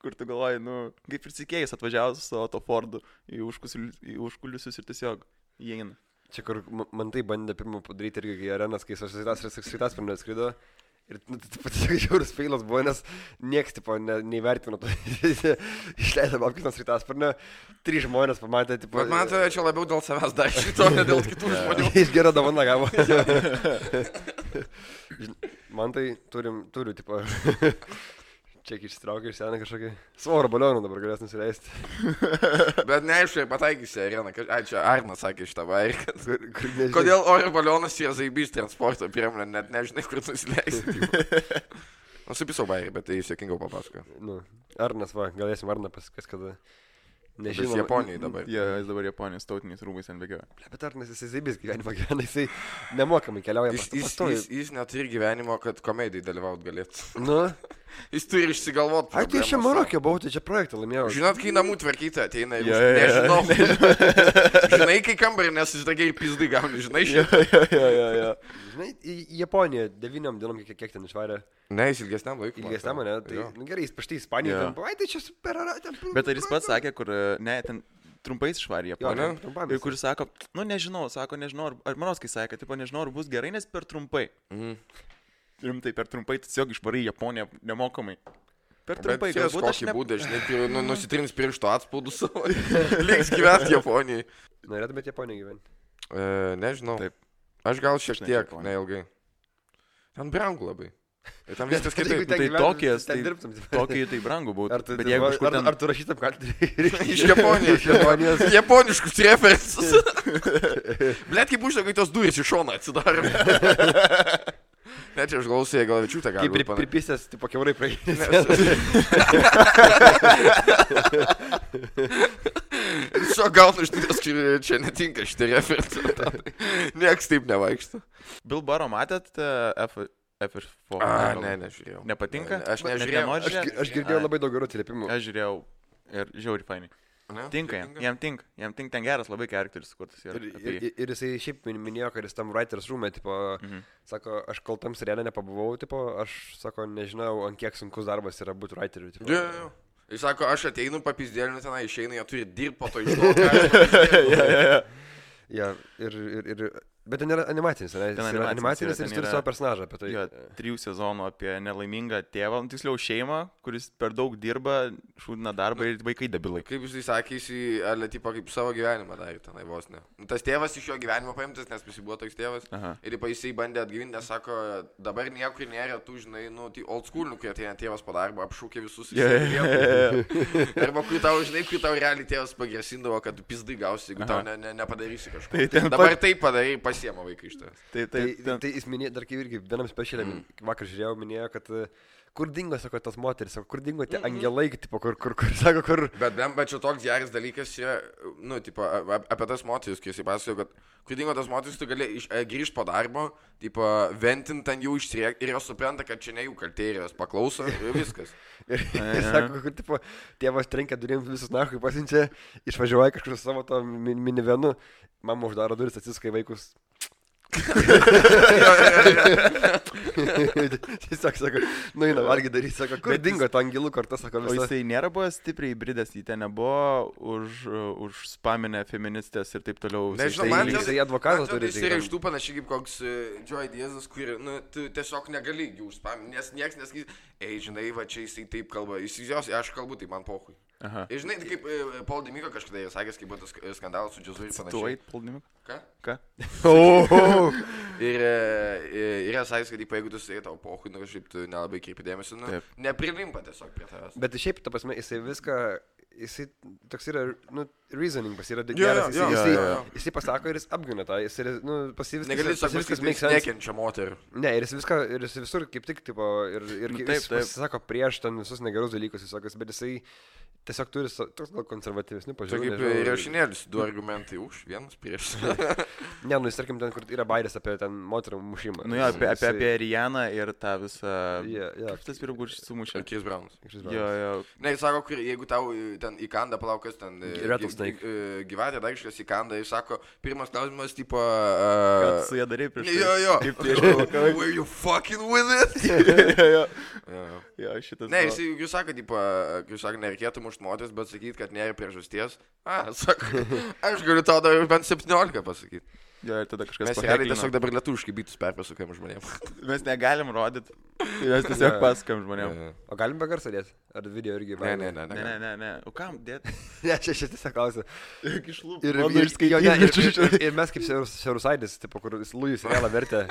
kur tu galvoji, nu, kaip ir sikėjus atvažiavus su savo to Fordu į užkulisius ir tiesiog įeina. Čia kur man tai bandė pirmą padaryti irgi arenas, kai Svitas pirmą atskrido. Ir tiesiog žiaurus feilas buvo, nes nieks, tipo, neįvertino to. Išleido Babkinas Svitasparnį, 3 žmonės pamatė, tipo... Bet man tai čia labiau dėl savęs dar šito, ne dėl kitų žmonių. Jis gerą dovaną gavo. Man tai turiu, tipo... Čia išsitraukia iš seną kažkokį svorio balioną dabar galės nusileisti. Bet neaišku, pataikysi areną. Ai, čia Arnas sakė šitą vairį, kad... Kodėl oro balionas yra zaibys transporto priemonė, net nežinai, kur nusileisti. Nusipisau vairį, bet tai jis jokingiau papasakojo. Nu, Arnas, va, galėsim Arną pasakės, kada... Nežinau. Jis Japonijai dabar. Jis dabar Japonijos tautiniais rūmais ant bėgio. Bet Arnas jisai zaibys gyvenimą gyvena, jisai nemokamai keliauja pastoviai. Jis neturi gyvenimo, kad komedijai dalyvaut galėtų. Nu? Jis turi išsigalvot. Ai, tai aš čia Marokė buvau, tai čia projektą laimėjau. Žinot, kai namų tvarkyti ateina ir nežinau. Žinai, kai kambarį nesusidagiai ir pizdai gauni, žinai šitą. Jo. Žinai, į Japoniją 9 dienom kiek ten išvarė. Ne, jis ilgesniam laikui. Ilgesniam, ne? Tai gerai, jis paštai Ispaniją. Ai, tai čia super. Bet ar jis pats sakė, kur, ne, ten trumpais išvarė Japoniją. Ir kuris sako, nu nežinau, ar Manoskai sakė, tipo, nežinau, ar bus gerai, nes per trumpai. Rimtai, per trumpai tiesiog išvarai Japoniją nemokamai. Per trumpai, Bet galbūt aš kokį būdą, žinai, nusitrins piršto atspaudus savo. Liks gyventi Japonijai. Norėtumėte Japoniją gyventi? Nežinau. Taip. Aš gal šiek Aš ne tiek, Japonija. neilgai. Ten brangu labai. Ir tam viskas kitaip. Tai Tokijas, tai dirbtum. Tokijai tai brangu būtų. Ar tu, Bet jeigu kažkur ten... ar tu rašytum kaltį? Iš Japonijos. Iš Japonijos. Japoniškus referensus. Blet, kaip uždega, kai tos durys iš šono atsidarė. Ne, čia aš galvoju, gal Vičiūtė gali. Kaip pripistęs, tipo kiaurai praeidės. Šio gaunu iš ties, čia netinka šitie referensai. Nieks taip nevaikšta. Bill Burro matėt F4? Ne, nežiūrėjau. Nepatinka? Aš nežiūrėjau. Aš girdėjau labai daug gerų atsiliepimų. Aš žiūrėjau ir žiauri fainai. Tinka jam, jam tinka, ten geras labai charakteris sukurtas. Ir jisai šiaip minėjo, kad jis tam writers room'e, tipo, sako, aš kol tam serialė nepabuvau, tipo, aš, sako, nežinau, ant kiek sunkus darbas yra būti writeriu. Tipo. Jis sako, aš ateinu papizdėlinu tenai, išeina, jie turi dirbti po to iš to. Bet ten yra animacinis, ne? Jis yra animacinis ir jis turi savo personažą apie tai. Jo, 3 sezonų apie nelaimingą tėvą, tiksliau šeimą, kuris per daug dirba, šūdina darbą ir vaikai debilai. Kaip jisai sakė, jisai, tipo, kaip savo gyvenimą darė tenai vos ne. Tas tėvas iš jo gyvenimo paimtas, nes jis buvo toks tėvas. Aha. Ir jisai bandė atgyvinti, nes sako, dabar niekur nėra, tu žinai, old school, kai ateina tėvas po darbo, apšūkė visus. Arba kai tau, žinai, kai tau realiai tėvas pagrasindavo, kad tu pizdai gausi, jeigu tau nepadarysi kažko. Dabar taip padarai, pasiema vaikai iš tavęs. Tai jis minėjo, dar kaip irgi vienam specialiam, vakar žiūrėjau, minėjo, kad kur dingo, sako, tas moteris, sako, kur dingo tie angelai, tipo, kur, sako, kur... Bet čia toks geras dalykas yra, tipo, apie tas moteris, kai jisai pasakojo, kad kur dingo tas moteris, tu gali grįžti po darbo, tipo, ventinti ant jų išsiriekti ir jos supranta, kad čia ne jų kaltė ir jos paklauso ir viskas. Ir sako, kur, tipo, tėvas trenkia durim visus nahui pasiunčia, išvažiuoja kažkur su savo to minivenu, mama uždaro duris, atsiskai vaikus. Tiesiog sako, eina valgy daryti, sako, kur dingo to angelų kortą, sako visą. O jisai nėra buvo stipriai įbridęs, jį ten nebuvo už spaminę feministės ir taip toliau. Nežinau, jisai advokatas turi. Jisai yra iš tų panašiai kaip koks Joy Diazas, kur tu tiesiog negali jų užspaminti, nes nieks nesakys, žinai, va čia jisai taip kalba, aš kalbu, tai man pohui. Ir žinai, kaip Paul Dimiko kažkada jis sakęs, kaip buvo tas skandalas su džiazu ir panašiai. Tu ait, Paul Dimiko? Ką? Ir yra sakęs, kad jeigu tu sakai tavo pohui, kažkaip tu nelabai kreipi dėmesį, neprilimpa tiesiog prie tavęs. Bet šiaip, ta prasme, jisai viską, jisai toks yra, reasoning pas yra geras, jisai pasako ir jis apgina tą, jisai, pasiviskas. Negali sakyti, kad jis nekenčia moterų. Ne, ir jis visur kaip tik, tipo, ir jis pasisako prieš ten visus negerus dalykus, bet jisai tiesiog turi toks gal konservatyvesnių pažiūrų. Tai kaip rašinėlis, 2 argumentai už, vienas prieš. Ne, jis tarkim ten, kur yra bairės apie ten moterų mušimą. Apie Rianą ir tą visą... Kaip tas pirmųjų sumušė? Chris Brownas. Jo. Ne, jis sako, jeigu tau ten įkanda plaukas, ten gyvatė dar kažkas įkanda, jis sako, pirmas klausimas, tipo... Ką tu su ją darai prieš tai? Jo. Kaip prieš tai? Were you fucking with it? Jo, šitas... Ne, jūs sako, tipo, nereikėtų mušti moteris, bet sakyti, kad nėra priežasties. Sako, aš galiu tau dar bent 17 pasakyti. Jo, ir tada kažkas mes realiai tiesiog dabar lietuviškai bytus perpasakojam žmonėms. Mes negalim rodyti, mes tiesiog pasakojam žmonėms. O galim be garso dėti? Ar video irgi? Ne. O kam dėti? Ne, čia tiesiog klausiu. Ir ir mes kaip Siaurusaidis, tipo, kur Lujus realą vertė.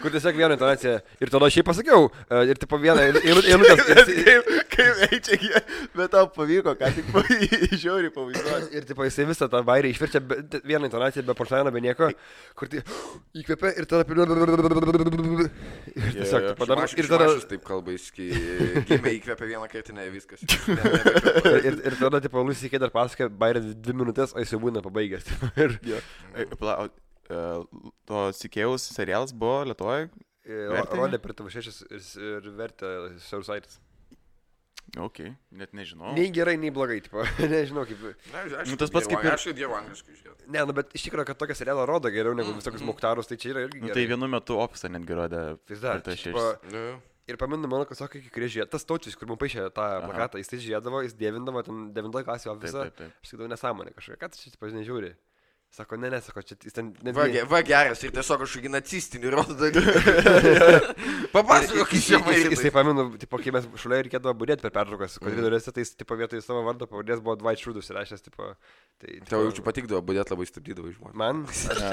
Kur tiesiog vieną intonaciją. Ir tada šiaip pasakiau. Ir tipo vieną eilutės. Kaip eičia, bet tau pavyko, ką tik žiauriai pavaizduoti. Ir tipo jisai visą tą bairį išverčia vieną intonaciją be portlaną, be nieko. Kur tai įkvėpia ir tada... Ir tiesiog padaro. Ir tada... Taip kalba, jis įkvėpia vieną kartinę, viskas. Ir tada, tipo, Lusikė dar pasakė, bairė 2 minutės, o jis jau būna pabaigęs. To Sikėjaus serialas buvo Lietuvoje? Rodė per TV6 ir vertė Siaurusaitis. Ok, net nežinau. Nei gerai, nei blogai, tipo, nežinau kaip... Tas pats kaip ir... Aš dievu angliškai žiūrėjau. Ne, bet iš tikrųjų, kad tokią serialą rodo geriau negu visokius Muktarus, tai čia yra irgi gerai. Tai vienu metu Opsą netgi rodė. Ir pamenu, mano, kad sako, kai kurie žiūrėjo, tas Taučius, kur man paaišė tą plakatą, jis tai žiūrėdavo, jis dievindavo ten 9 klasį Opsą. Aš sakydavau nesąmonę kažkokią, ką tu čia, tipo, nežiūri. Sako, ne, sako, čia jis ten... Va geras ir tiesiog kažkokį nacistinį rodo dalykų. Papasakok, Jisai pamenu, tipo, kai mes šalia reikėdavo būdėti per pertraukas, koridoriuose, tai jis, tipo, vietoj savo vardo pavadės buvo Dwight Schrute įrašęs, tipo... Tau jaučiu patikdavo, būdėti labai stabdydavo iš žmonės. Man?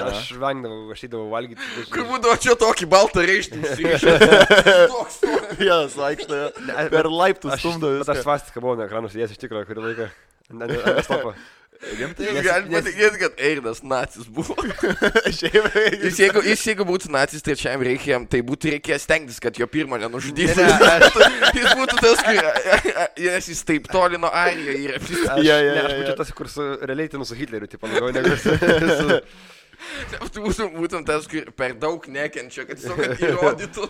Aš vengdavau, aš eidavau valgyti. Kur būdavo čia tokį baltą reištinį? Toks. Vienas vaikšto, per laiptus stumdo. Bet aš svastiką buvau nuo ekranų sėdėjęs iš tikrųjų, kurį laiką. Stopą. Jūs galite patikėti, kad Eirdas nacis buvo. Jeigu būtų nacis trečiajam reikia, tai būtų reikės stengtis, kad jo pirmą nenužudytų. Jis būtų tas, nes jis taip toli nuo Airiją yra. Aš būčiau tas, kur realiai ten su Hitleriu, tipo, labiau negu su... Tu būtum tas, kur per daug nekenčia, kad tiesiog įrodytų.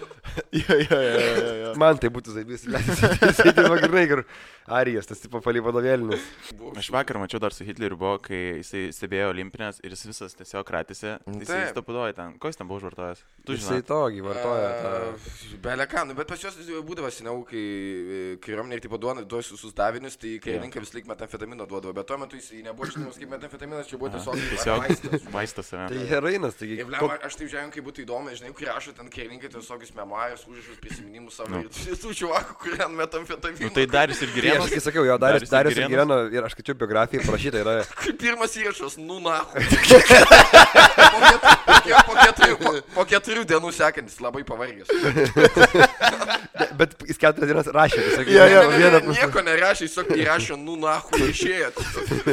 Man tai būtų zaibys. Jisai dirba grinai, kur Arijas, tas tipo palį vadovėlinis. Aš vakar mačiau dar su Hitleriu buvo, kai jisai stebėjo olimpinės ir jis visas tiesiog kratėsi. Jisai stapudoja ten. Ko jis ten buvo užvartojęs? Jisai tokį vartoja tą... Beleką, bet pas juos būdavo seniau, kai kariuomenė ir tipo duoda visus davinius, tai karininkai vis laik metamfetamino duodavo, bet tuo metu jis nebuvo žinomas kaip metamfetaminas, čia buvo tiesiog vaistas. Tai herainas, taigi... Aš taip žiūrėjau, kaip būtų įdomu, žinai, kai rašo ten karininkai visokius memoarus, užrašus, prisiminimus savo ir tų čuvakų, kurie ant metamfetamino. Tai Darius ir Girėnas. Aš kai sakiau, jo, Darius ir Girėno, ir aš skaičiau biografiją, parašyta yra... Pirmas įrašas, nu nahu. Po 4 dienų sekantis, labai pavargęs. Bet jis 4 dienas rašė, nieko nerašė, jis įrašė, nu nahu, išėjo.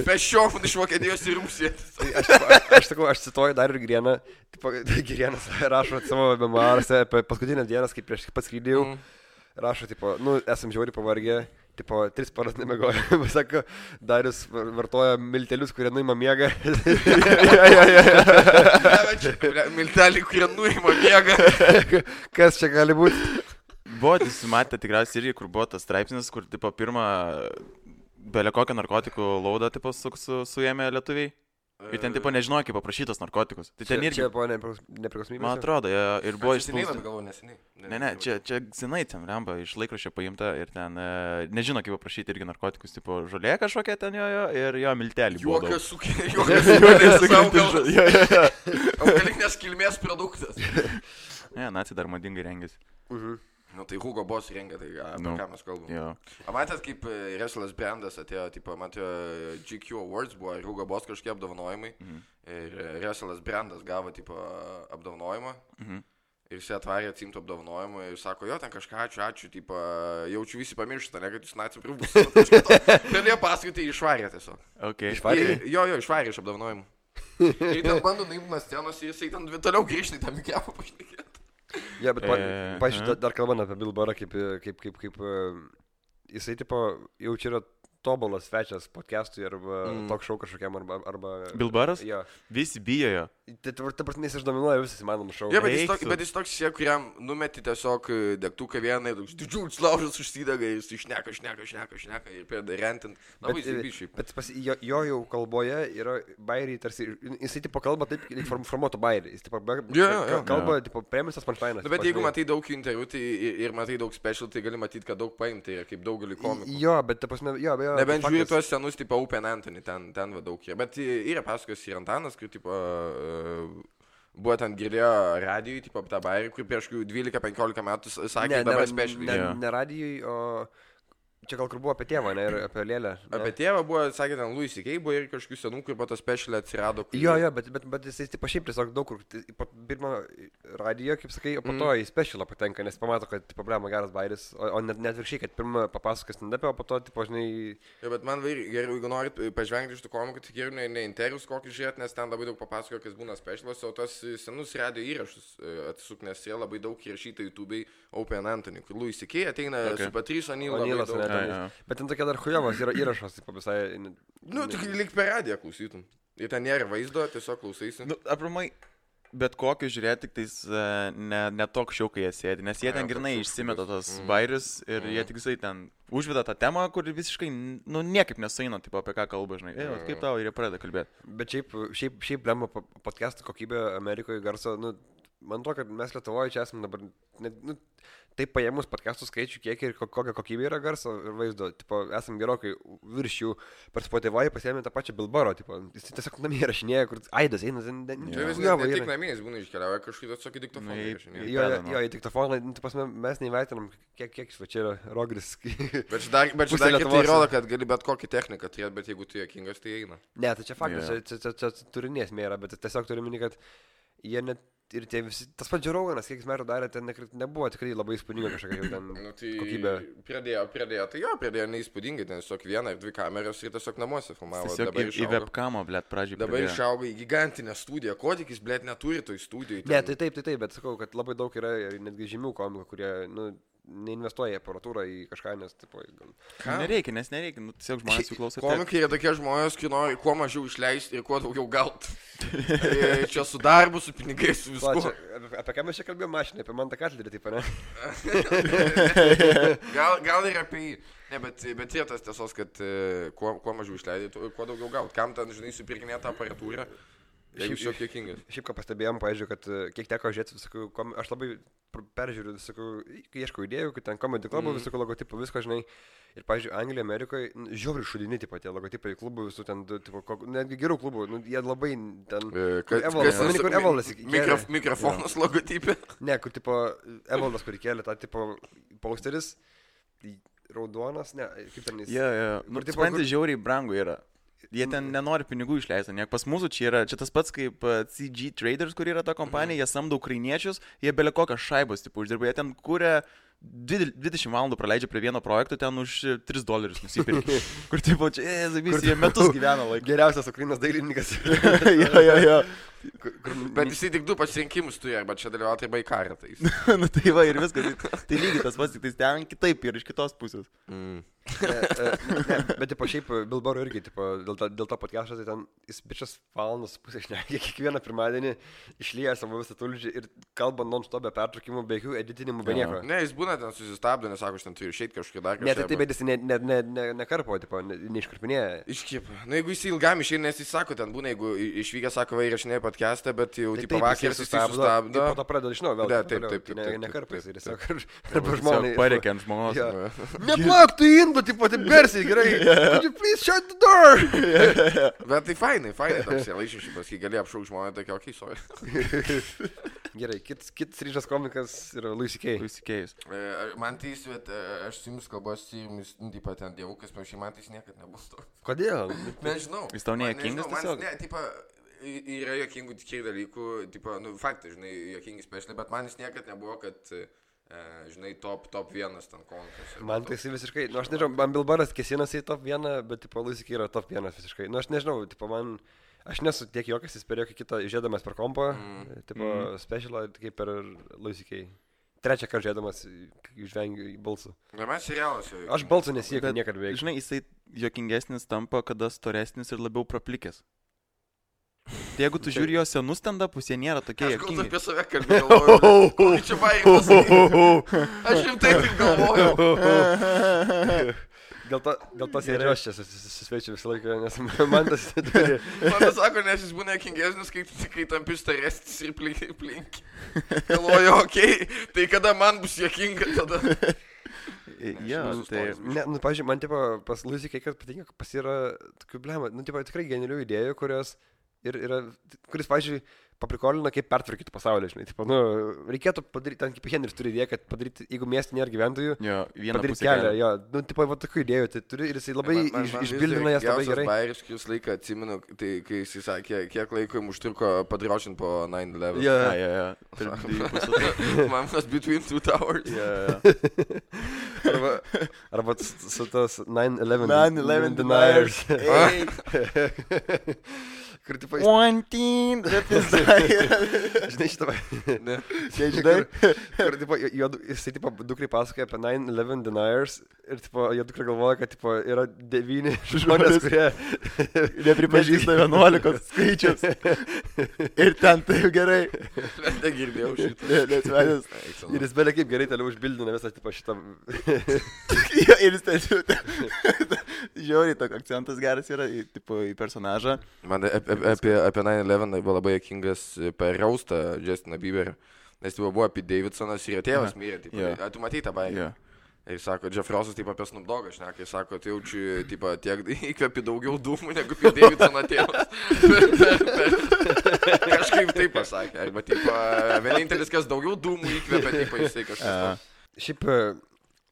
Pešiofun iš Vokietijos į Rusiją. Aš cituoju dar ir Girėną. Girėnas rašo savo memoaruose apie paskutinės dienas, kai prieš pats skrydėjau. Rašo, tipo, nu, esam žiauriai pavargę. Tipo, 3 paras nemiegojo. Sako, Darius vartoja miltelius, kurie nuima miegą. Milteliai, kurie nuima miegą. Kas čia gali būti? Buvo, jūs matėte tikriausiai irgi, kur buvo tas straipsnis, kur, tipo, pirmą belė kokią narkotikų laudą, tipo, suėmė lietuviai. Ir ten, tipo, nežinojo, kaip paprašytos narkotikus. Tai ten irgi... Čia buvo nepriklausomybės? Man atrodo, ir buvo neseniai. Ne, čia senai ten, remba, iš laikraščio paimta ir ten nežino, kaip paprašyti irgi narkotikus, tipo, žolė kažkokia ten jo ir jo miltelį. Juokas sukėlės augalas. Augalinės kilmės produktas. Ne, naciai dar madingai rengėsi. Nu, tai Hugo Boss rengia, tai apie ką mes kalbame. O matėt, kaip Russell Brandas atėjo, tipo, matėjo GQ Awards buvo ir Hugo Boss kažkokie apdovanojimai. Ir Russell Brandas gavo, tipo, apdovanojimą. Ir jis atvarė atsimtų apdovanojimą ir sako, jo, ten kažką ačiū, tipo, jaučiu visi pamirštą, ne, kad jūs nacijų pribus. Galėjo paskaitai išvarė tiesiog. Išvarė? Jo, išvarė iš apdovanojimų. Ir ten bando naimti nuo scenos ir jisai ten toliau grįžti tą mikrofą pašnekėti. Ja, bet, pažiūrėjau, dar kalbant apie Bill Burrą, kaip jisai, tipo, jau čia yra tobulas svečias podcast'ui arba talk show kažkokiam arba... Bill Burras? Jo. Visi bijo jo. Ta prasme, jis išdominuoja visas įmanomus šou. Ja, bet jis toks, kuriam numeti tiesiog degtuką vieną ir didžiulis laužas užsidega ir jis šneka ir pėda rentint. Bet jo jau kalboje yra bairiai tarsi, jisai tipo kalba taip, formuoto bairiai. Jis tipo kalba, tipo, premisas punchline'as. Bet jeigu matai daug interviu ir matai daug special, tai gali matyti, kad daug paimti ir kaip daugelį komikų. Jo, bet ta prasme, jo, bejo. Nebent žiūrėjau tuos senus, tipo, Open Anthony, ten daug yra. Bet yra pasakos ir Antanas, kur, tipo, buvo ten girdėjo radijui, tipo, tą bairį, kur prieš 12-15 metų sakė, dabar specialiai. Ne radijui, o... Čia gal kur buvo apie tėvą, ne, ir apie Lėlę. Apie tėvą buvo, sakė, ten Louis C.K. buvo ir kažkokių senų, kur po to specialiai atsirado. Jo, bet jisai tipo šiaip tiesiog daug kur, po pirmą radiją, kaip sakai, o po to į specialą patenka, nes pamato, kad problema geras bairis, o net viršiai, kad pirmą papasakas stand-up'e, o po to, tipo, žinai... Jo, bet man geriau, jeigu norit pažvengti iš tų komikų, tai geriau ne intervius kokį žiūrėti, nes ten labai daug papasako, kas būna specialas, o tos senus radio įrašus atsisuk, nes jie labai daug įrašyta YouTube'ai Open Anthony, kur Louis C.K. ateina su Patrice O'Neil. Bet ten tokia dar chujovas yra įrašas, tipo visai... Nu, tik lyg per radiją klausytum. Ir ten nėra vaizdo, tiesiog klausaisi. Nu, apramai, bet kokį žiūrėti, tik tais ne tok šiau, kai jie sėdi, nes jie ten grinai išsimeta tos bairius ir jie tik visai ten užveda tą temą, kur visiškai, nu, niekaip nesueina, tipo, apie ką kalba, žinai. Kaip tau ir jie pradeda kalbėti. Bet šiaip lemma podcast'o kokybė Amerikoje garso, nu... Man to, kad mes Lietuvoje čia esame dabar, taip paėmus podcastų skaičių, kiek ir kokia kokybė yra garso ir vaizdo, tipo, esam gerokai virš jų, per Spotify pasiėmė tą pačią Bilbaro, tipo, jis tiesiog namie rašinėja, kur aidas eina, Ne tik namie, jis būna iškeliauja kažkaip atsakyti diktofoną. Jo, į diktofoną, mes neįvertinam, kiek čia yra rogris. Bet dar kitai rodo, kad gali bet kokį techniką turėti, bet jeigu tu juokingas, tai eina. Ne, tai čia faktas, čia turinės mėra, bet tiesiog turiu minį, kad jie net ir tie visi, tas pats Džerauganas, kiek jis metų darė, ten nebuvo tikrai labai įspūdinga kažkokia jau ten kokybė. Pradėjo neįspūdingai, ten tiesiog vieną ir dvi kameras ir tiesiog namuose filmavo. Tiesiog į webkamą, blėt, pradžiai. Dabar išaugo į gigantinę studiją, ko tik jis, blėt, neturi toj studijai. Ne, tai taip, bet sakau, kad labai daug yra netgi žymių komikų, kurie, neinvestuoja į aparatūrą, į kažką, nes, tipo, gal... Nereikia, tiesiog žmonės jų klauso. Komikai yra tokie žmonės, kai nori kuo mažiau išleisti ir kuo daugiau gauti. Čia su darbu, su pinigais, su viskuo. Apie ką mes čia kalbėjome mašinai, apie Mantą Katlerį, taip, ne? Gal ir apie jį. Ne, bet yra tas tiesos, kad kuo mažiau išleidai, kuo daugiau gauti. Kam ten, žinai, supirkinėti aparatūrą? Šiaip ką pastebėjom, pavyzdžiui, kad kiek teko žiūrėti visokių, aš labai peržiūriu visokių, kai ieškau idėjų, kad ten komedy klubų, visokių logotipų, visko, žinai. Ir, pavyzdžiui, Anglijoje, Amerikoje, žiauriai šudini, tipo, tie logotipai klubų, visų ten, tipo, netgi gerų klubų, jie labai ten... Kur Evaldas įkėlė. Mikrofonas logotipė. Ne, kur, tipo, Evaldas, kur įkėlė tą, tipo, posteris, raudonas, ne, kaip ten jis... Supranti, žiauriai brangu yra. Jie ten nenori pinigų išleisti, ne? Pas mūsų čia tas pats kaip CG Traders, kur yra ta kompanija, jie samdo ukrainiečius, jie belia kokią šaibos, tipo, uždirba, jie ten kūrė 20 valandų praleidžia prie vieno projekto, ten už $3 nusipirkė. Kur, tipo, čia, jie metus gyvena laiką. Geriausias Ukrainos dailininkas. Jo. Bet jisai tik 2 pasirinkimus turi, arba čia dalyvauti arba į karą. Nu tai va ir viskas, tai lygiai tas pats, tik tai ten kitaip ir iš kitos pusės. Bet, tipo, šiaip Bilbaro irgi, tipo, dėl to podcast'o, tai ten jis bičias valandas pusę šnekė, kiekvieną pirmadienį išlieja savo visą tulžį ir kalba non-stop be pertraukimų, be jokių editinimų, be nieko. Ne, jis būna ten susistabdo, nesako, aš ten turiu išeiti kažkokį dar kažką. Ne, tai bet jis nekarpo, tipo, neiškarpinėja. Iškipa. Na, jeigu jis ilgam išeina, nes jis sako, ten būna, jeigu išvykęs, sako, va, įrašinėja podcast'ą, bet jau, tipo, vakar susistabdo. Po to pradeda iš naujo, vėl. Taip. Nekarpais ir tiesiog arba žmonai. Pareikia ant žmonos. Neplak tu indų, tipo, taip garsiai, gerai. Could you please shut the door? Bet tai fainai toks laišyšipas, kai gali apšauk žmonę, tokia, okei, sorry. Gerai, kitas ryžas komikas yra Louis C.K.'s. Man tai aš su jumis kalbuosi ir jums, taip pat ten dievukas, panašiai, man tai niekad nebus to. Kodėl? Nežinau. Jis tau nejuokingas tiesiog? Ne, tipo, yra juokingų tikrai dalykų, tipo, nu, faktai, žinai, juokingi specialiai, bet man jis niekad nebuvo, kad, žinai, top 1 ten komikas. Man tai jis visiškai, nu, aš nežinau, man Bilbaras kėsinasi į top 1, bet, tipo, Louis C.K. yra top 1 visiškai. Nu, aš nežinau, tipo, aš nesu tiek juokas, jis per jokį kitą žiūrėdamas per kompą, tipo, specialą, kaip per Louis C.K. Trečią kartą žiūrėdamas, išvengiu į balsų. Na, mes serialas. Aš balsų nesiekiu niekad beveik. Žinai, jisai juokingesnis tampa, kada storesnis ir labiau praplikęs. Tai jegu tu žiūri jo senus stand-upus, jie nėra tokie juokingi. Aš apie save kalbėjau. Kokį čia baigęs. Aš rimtai taip galvojau. Dėl to sėdžiu aš čia susveičiu visą laiką, nes man tas turi. Man sako, nes jis būna juokingesnis, kai tampi storesnis ir plink. Galvoju, okei, tai kada man bus juokinga tada? Jo, tai... Ne, nu, pavyzdžiui, man, tipo, pas Louis C.K. patinka, pas yra tokių blema, nu, tipo, tikrai genialių idėjų, kuris, pavyzdžiui, paprikolina, kaip pertvarkyti pasaulį, žinai, tipo, nu, reikėtų padaryti, ten kaip Henris turi idėją, kad padaryti, jeigu miestė nėra gyventojų, padaryti kelią, jo, nu, tipo, va, tokių idėjų, tai turi ir jisai labai išbildina jas labai gerai. Man bairiškius laiką atsimenu, tai kai jisai sakė, kiek laiko jums užtruko padraušint po 9/11. Jo. Man was between 2 towers. Arba su tos 9/11 deniers. Kur, tipo, One team, žinai šitą, žinai, kur, tipo, jisai, tipo, dukrai pasakoja apie 9/11 deniers ir, tipo, jo dukra galvoja, kad, tipo, yra 9 žmonės, kurie nepripažįsta 11 skaičius. Ir ten taip gerai. Negirdėjau šitą. Ir jis belia kaip gerai toliau užbildina visą, tipo, šitą. Ir jis ten žiauriai, toks akcentas geras yra, tipo, į personažą. Man apie 9/11 buvo labai juokingas per raustą Justiną Bieberį. Nes tai buvo apie Davidsonas ir jo tėvas mirė. Tipo, Jo. Tu matei tą baigę? Jo. Ir sako, Jeff Rossas taip apie Snoop Doggą šneka, jis sako, tai jaučiu tipo, tiek įkvepi daugiau dūmų negu apie Davidsono tėvas. Kažkaip taip pasakė. Arba tipo, vienintelis, kas daugiau dūmų įkvepia, tipo, jisai kažkas. Šiaip,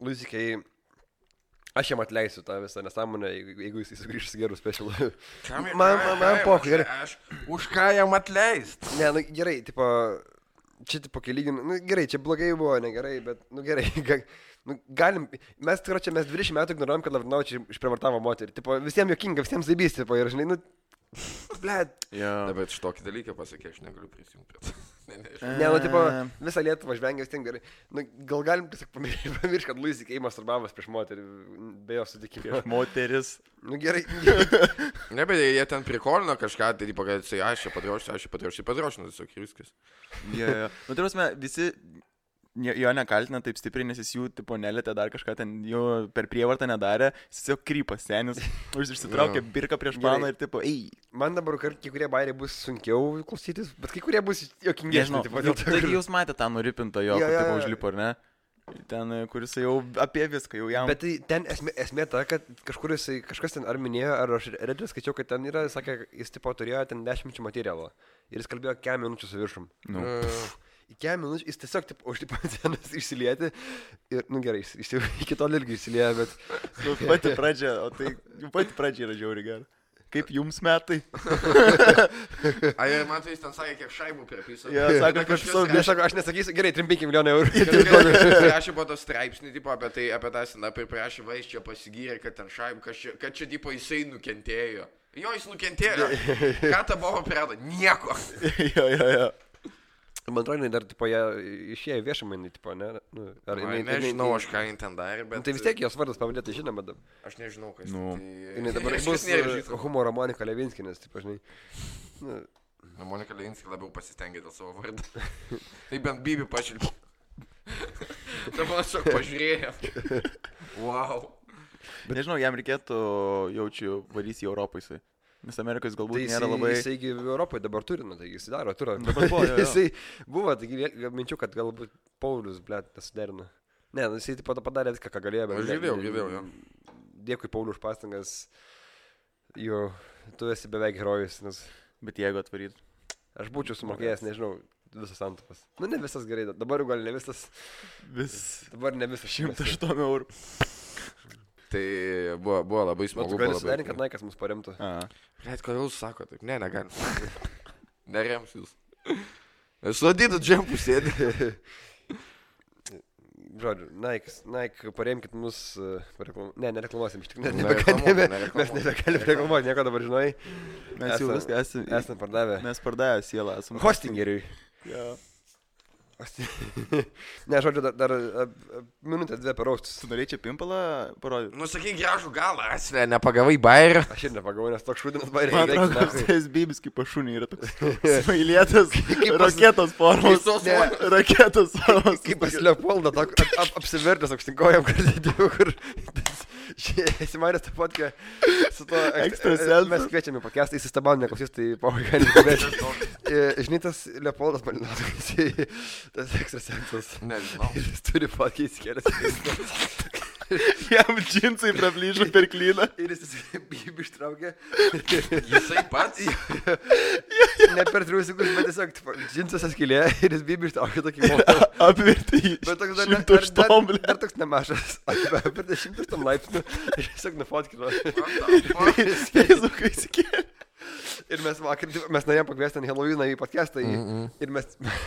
Luzikai, aš jam atleisiu tą visą nesąmonę, jeigu jis sugrįžs gerų specialų. Man pokai, gerai. Už ką jam atleist? Ne, nu gerai, tipo, čia tipo kelygin, nu gerai, čia blogai buvo, negerai, bet, nu gerai, nu galim, mes 20 metų ignoruojam, kad Lavrinovičius išprievartavo moterį, tipo, visiems jokinga, visiems zaibys, tipo, ir žinai, nu, blėt. Na, bet šitokį dalyką pasakė, aš negaliu prisijungti prie to. Ne, nu, tipo, visą Lietuvą žvengia vis tiek gerai. Nu, gal galim tiesiog pamiršti, kad Luis Ikei masturbavas prieš moterį, be jo sutikimo. Prieš moteris. Nu, gerai. Ne, bet jie ten prikolino kažką, tai tipo, kad jisai, aš čia padrošiu, tiesiog ir viskas. Jo. Nu, tai prasme, visi jo nekaltina taip stipriai, nes jis jų, tipo, nelėtė dar kažką ten, jų per prievartą nedarė, jis tiesiog krypas senis, išsitraukė birką prieš paną ir, tipo, ei. Man dabar kai kurie bairiai bus sunkiau klausytis, bet kai kurie bus jokingesni. Taigi jūs matėte tą nuripintą jo, kur tipo užlipo, ar ne? Ten, kuris jau apie viską, jau jam. Bet tai ten esmė ta, kad kažkas ten ar minėjo, ar aš redžiu skaičiau, kad ten yra, sakė, jis tipo turėjo ten 10 minučių materialo ir jis kalbėjo 4 minučių su viršum. Nu. Į 4 minučių jis tiesiog taip užlipo ant scenos išsilieti ir, nu gerai, jis jau iki tol irgi išsilieja, bet... Nu, pati pradžia, o tai pati pradžia yra žiauri gera. Kaip jums metai? Ai, man tai jis ten sakė, kiek šaibų pripisa. Ja, sako, kažkas... Aš nesakysiu, gerai, 3-5 milijonų eurų. Prašė po to straipsnį, tipo, apie tą stand-up ir prašė, va, jis čia pasigyrė, kad ten šaibų, kad čia, tipo, jisai nukentėjo. Jo, jis nukentėjo. Ką ta buvo priedo? Nieko. Jo. Man atrodo, dar, tipo, jie išėjo viešamai, tipo, ne? Nu, nežinau, aš ką jin ten darė, bet... Tai vis tiek jos vardas pavadėtai žinoma dabar. Aš nežinau, kas... Tai dabar bus humoro Monika Levinskinas, tipo, žinai. Monika Levinskį labiau pasistengė dėl savo vardą. Tai bent Bibi pašilpė. Dabar aš pažiūrėjau. Wow. Bet nežinau, jam reikėtų, jaučiu, varys į Europą jisai. Nes Amerikos galbūt tai nėra labai... Tai jisai Europoje dabar turi, nu, tai jisai daro turą. Jisai buvo, taigi minčiu, kad galbūt Paulius, blėt, nesuderino. Ne, nu, jisai taip pat padarė viską, ką galėjo. Aš girdėjau, jo. Dėkui, Paulius, už pastangas. Jo, tu esi beveik herojus, nes... Bet jeigu atvaryt. Aš būčiau sumokėjęs, nežinau, visas santupas. Nu, ne visas gerai, dabar gal ne visas. Dabar ne visas. 108 eurų. Tai buvo labai smagu. Tu gali sudarinti, kad Naikas mus paremtų. Blet, kodėl jūs sako taip? Ne, negalim. Nerems jūs. Sudėtų džempų sėdį. Žodžiu, Nike, paremkit mus. Nereklamuosim, iš tikrųjų. Mes nebegalim reklamuoti, nieko dabar žinai. Mes jau viską esame pardavę. Mes pardavę sielą. Hostingeriui. Jo. Ne, žodžiu, dar minutę 2 per aukštus. Tu norėjai čia pimpalą parodyti? Nu, sakai, gražų galą, Asle, nepagavai bairį. Aš ir nepagavau, nes toks šūdinas bairį. Man atrodo, kad Bibis kaip pašūnį yra toks smailėtas, raketos formos. Raketos formos. Kaip pas Leopoldą, apsivertęs aukštinkojam, kur... Esi manęs tą fotkę su to ekstrasensu. Mes kviečiame pakestą, jis įstabam neklausys, tai pavaigai kalbėti. Žinai, tas Leopoldas Malinauskas, tas ekstrasensas. Nežinau. Jis turi fotkę įsikėlęs. Jam džinsai praplyžo per klyną. Ir jis Bibį ištraukė. Jisai pats? Ne per 3 sekundžių, bet tiesiog džinsas atskilė ir jis Bibį ištraukė tokį motą. Apvirtį į 100 blė. Dar toks nemažas. Apvirtį 100 laipsnių ir tiesiog nufotkino. Feisbukai įsikėlė. Ir mes vakar, mes norėjom pakviesti ant Halloweeną į podcastą ir mes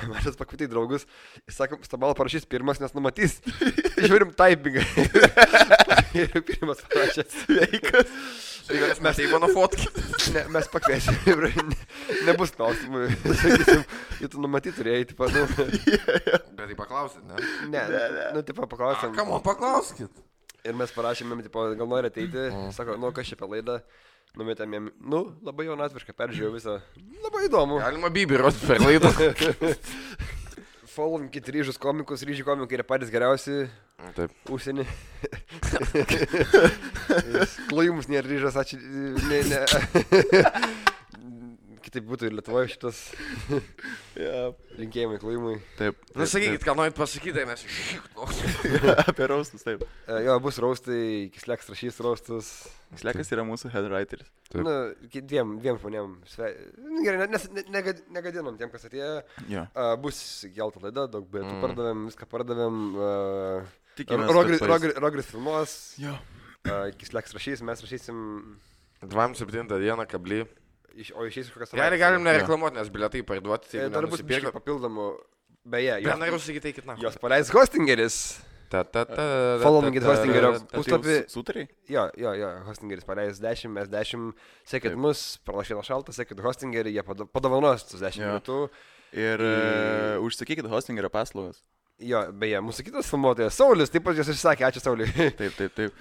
mažas pakvietė draugus. Jis sako, Stabalo parašys pirmas, nes numatys. Žiūrim typingą. Ir pirmas parašė sveikas. Mes tai mano fotki. Ne, mes pakviesim. Nebus klausimų. Sakysim, tu numatyti turėjai, tipo, nu. Bet tai paklausit, ne? Ne, nu, tipo, paklausim. Kam man paklauskit? Ir mes parašėme, tipo, gal nori ateiti. Sako, nu, kas čia apie laidą. Numetėm jam, nu, labai jaunatviškai peržiūrėjau visą. Labai įdomu. Galima Bibį rodyti per laidą. Followinkit ryžius komikus, ryžių komikai yra patys geriausi. Taip. Užsienį. Klojimus nėra ryžas, ačiū. Ne. kitaip būtų ir Lietuvoje šitas linkėjimai klojimui. Taip. Nu, sakykit, ką norit pasakyti, tai mes Apie raustus, taip. Jo, bus raustai, Kisleks rašys raustus. Slekas yra mūsų headwriteris. Na, dviem žmonėm. Gerai, negadinom tiem, kas atėjo. Jo. Bus gelta laida, daug bilietų pardavėm, viską pardavėm. Tikimės, Rogris filmuos. Jo. Kisleks rašys, mes rašysim. 27 dieną kablį. O išeis iš kokios Gerai, galim nereklamuoti, nes bilietai parduoti. Dar bus biškai papildomų. Beje, Noriu sakyti, eikit na. jos paleis Hostingeris. Followingit Hostingerio puslapį. Sutariai? Jo, Hostingeris paleis 10, mes 10. Sekit mus, pralašėna šaltą, sekit Hostingerį, jie padovanos tus 10 minutų. Ir užsakykit Hostingerio paslaugas. Jo, beje, mūsų kitas filmuotojas, Saulis, taip pat jūs išsakė, ačiū Sauliui. Taip.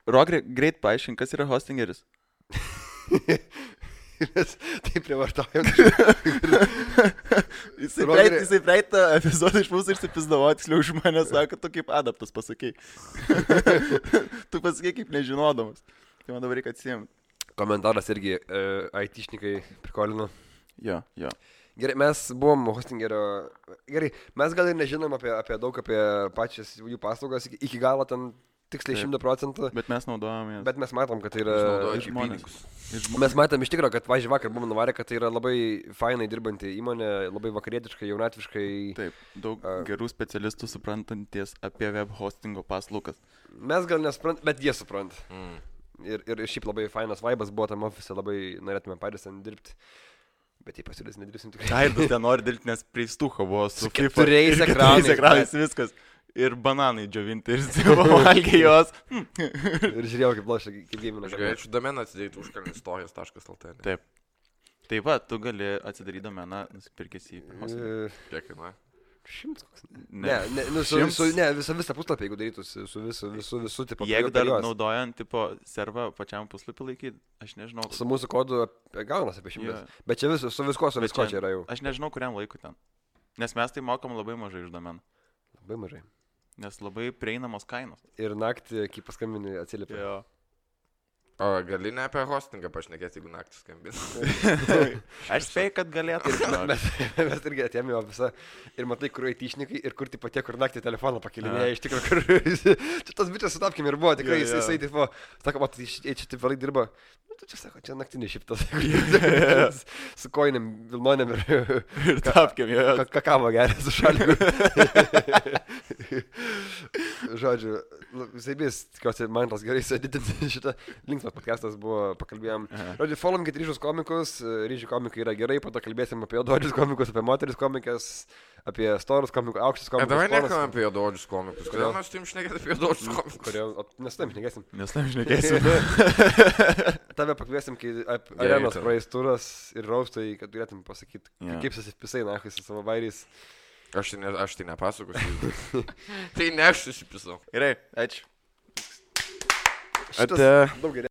Rogri, greit paaiškink, kas yra Hostingeris. Taip privartaujam. Jisai praeitą epizodą iš mūsų išsipizdavo, tiksliau už mane sako, tu kaip adaptas pasakai. Tu pasakai kaip nežinodamas. Tai man dabar reikia atsiimti. Komentaras irgi IT-šnikai prikolino. Jo. Gerai, mes buvom Hostingerio. Gerai, mes gal ir nežinom apie daug apie pačias jų paslaugas iki galo ten tiksliai 100%. Bet mes naudojame. Bet mes matom, kad tai yra... žmonės. Mes matom iš tikrųjų, kad vakar buvom nuvarę, kad tai yra labai fainai dirbanti įmonė, labai vakarietiškai, jaunatviškai. Taip, daug gerų specialistų suprantanties apie web hostingo paslaugas. Mes gal nesuprantam, bet jie supranta. Ir šiaip labai fainas vaibas buvo tam ofise, labai norėtume patys ten dirbti. Bet jei pasiūlės nedirbsim tikrai. Aidas ten nori dirbti, nes prie stūko buvo su 4 ekranais viskas. Ir bananai džiovinti, ir valgė jos. Ir žiūrėjau, kaip lošia, kaip gėmina. Aš galėčiau domeną atsidaryti užkalnistorijas.lt. Taip. Taip pat, tu gali atsidaryti domeną, nusipirkęs į... Kiek kainuoja? 100 koks. Ne, visą puslapį, jeigu darytųsi su visu tipo. Jeigu dar naudojant tipo servą pačiam puslapį laikyti, aš nežinau. Su mūsų kodu gaunas apie 100. Bet čia su visko čia yra jau. Aš nežinau, kuriam laikui ten. Nes mes tai mokam labai mažai iš domenų. Labai mažai. Nes labai prieinamos kainos. Ir naktį, kai paskambini, atsiliepia. Jo. O gali ne apie hostingą pašnekėti, jeigu naktį skambini. Aš spėjau, kad galėtų. Mes irgi atėjome į ofisą ir matai, kur IT-šnikai ir kur tipo tie, kur naktį telefoną pakelinėja. Iš tikrųjų, kur... Čia tas bičias sutapkim ir buvo, tikrai jisai tipo... Sako, matai, čia taip vėlai dirba. Nu, tu čia sako, čia naktinis šiptas. Su koinėm, vilnonėm ir tapkim, jo. Kakavo geria su šaliku. Žodžiu, visai bis, tikiuosi, man tas gerai sėdėti šitą. Linksmas podcastas buvo, pakalbėjom. Žodžiu, followingit ryžius komikus, ryžių komikai yra gerai, po to kalbėsim apie juododžius komikus, apie moteris komikas, apie storus komikus, aukštus komikus. Davai nekalbam apie juododžius komikus. Kodėl mes turim šnekėti apie juododžius komikus? Kodėl? Nes tam šnekėsim. Tave pakviesim, kai arenos praeis turas ir raustai, kad turėtum pasakyti, kaip susipisai nachai su savo vairiais. Aš tai nepasakosiu. Tai ne aš susipisau. Gerai, ačiū. Šitas daug geriau.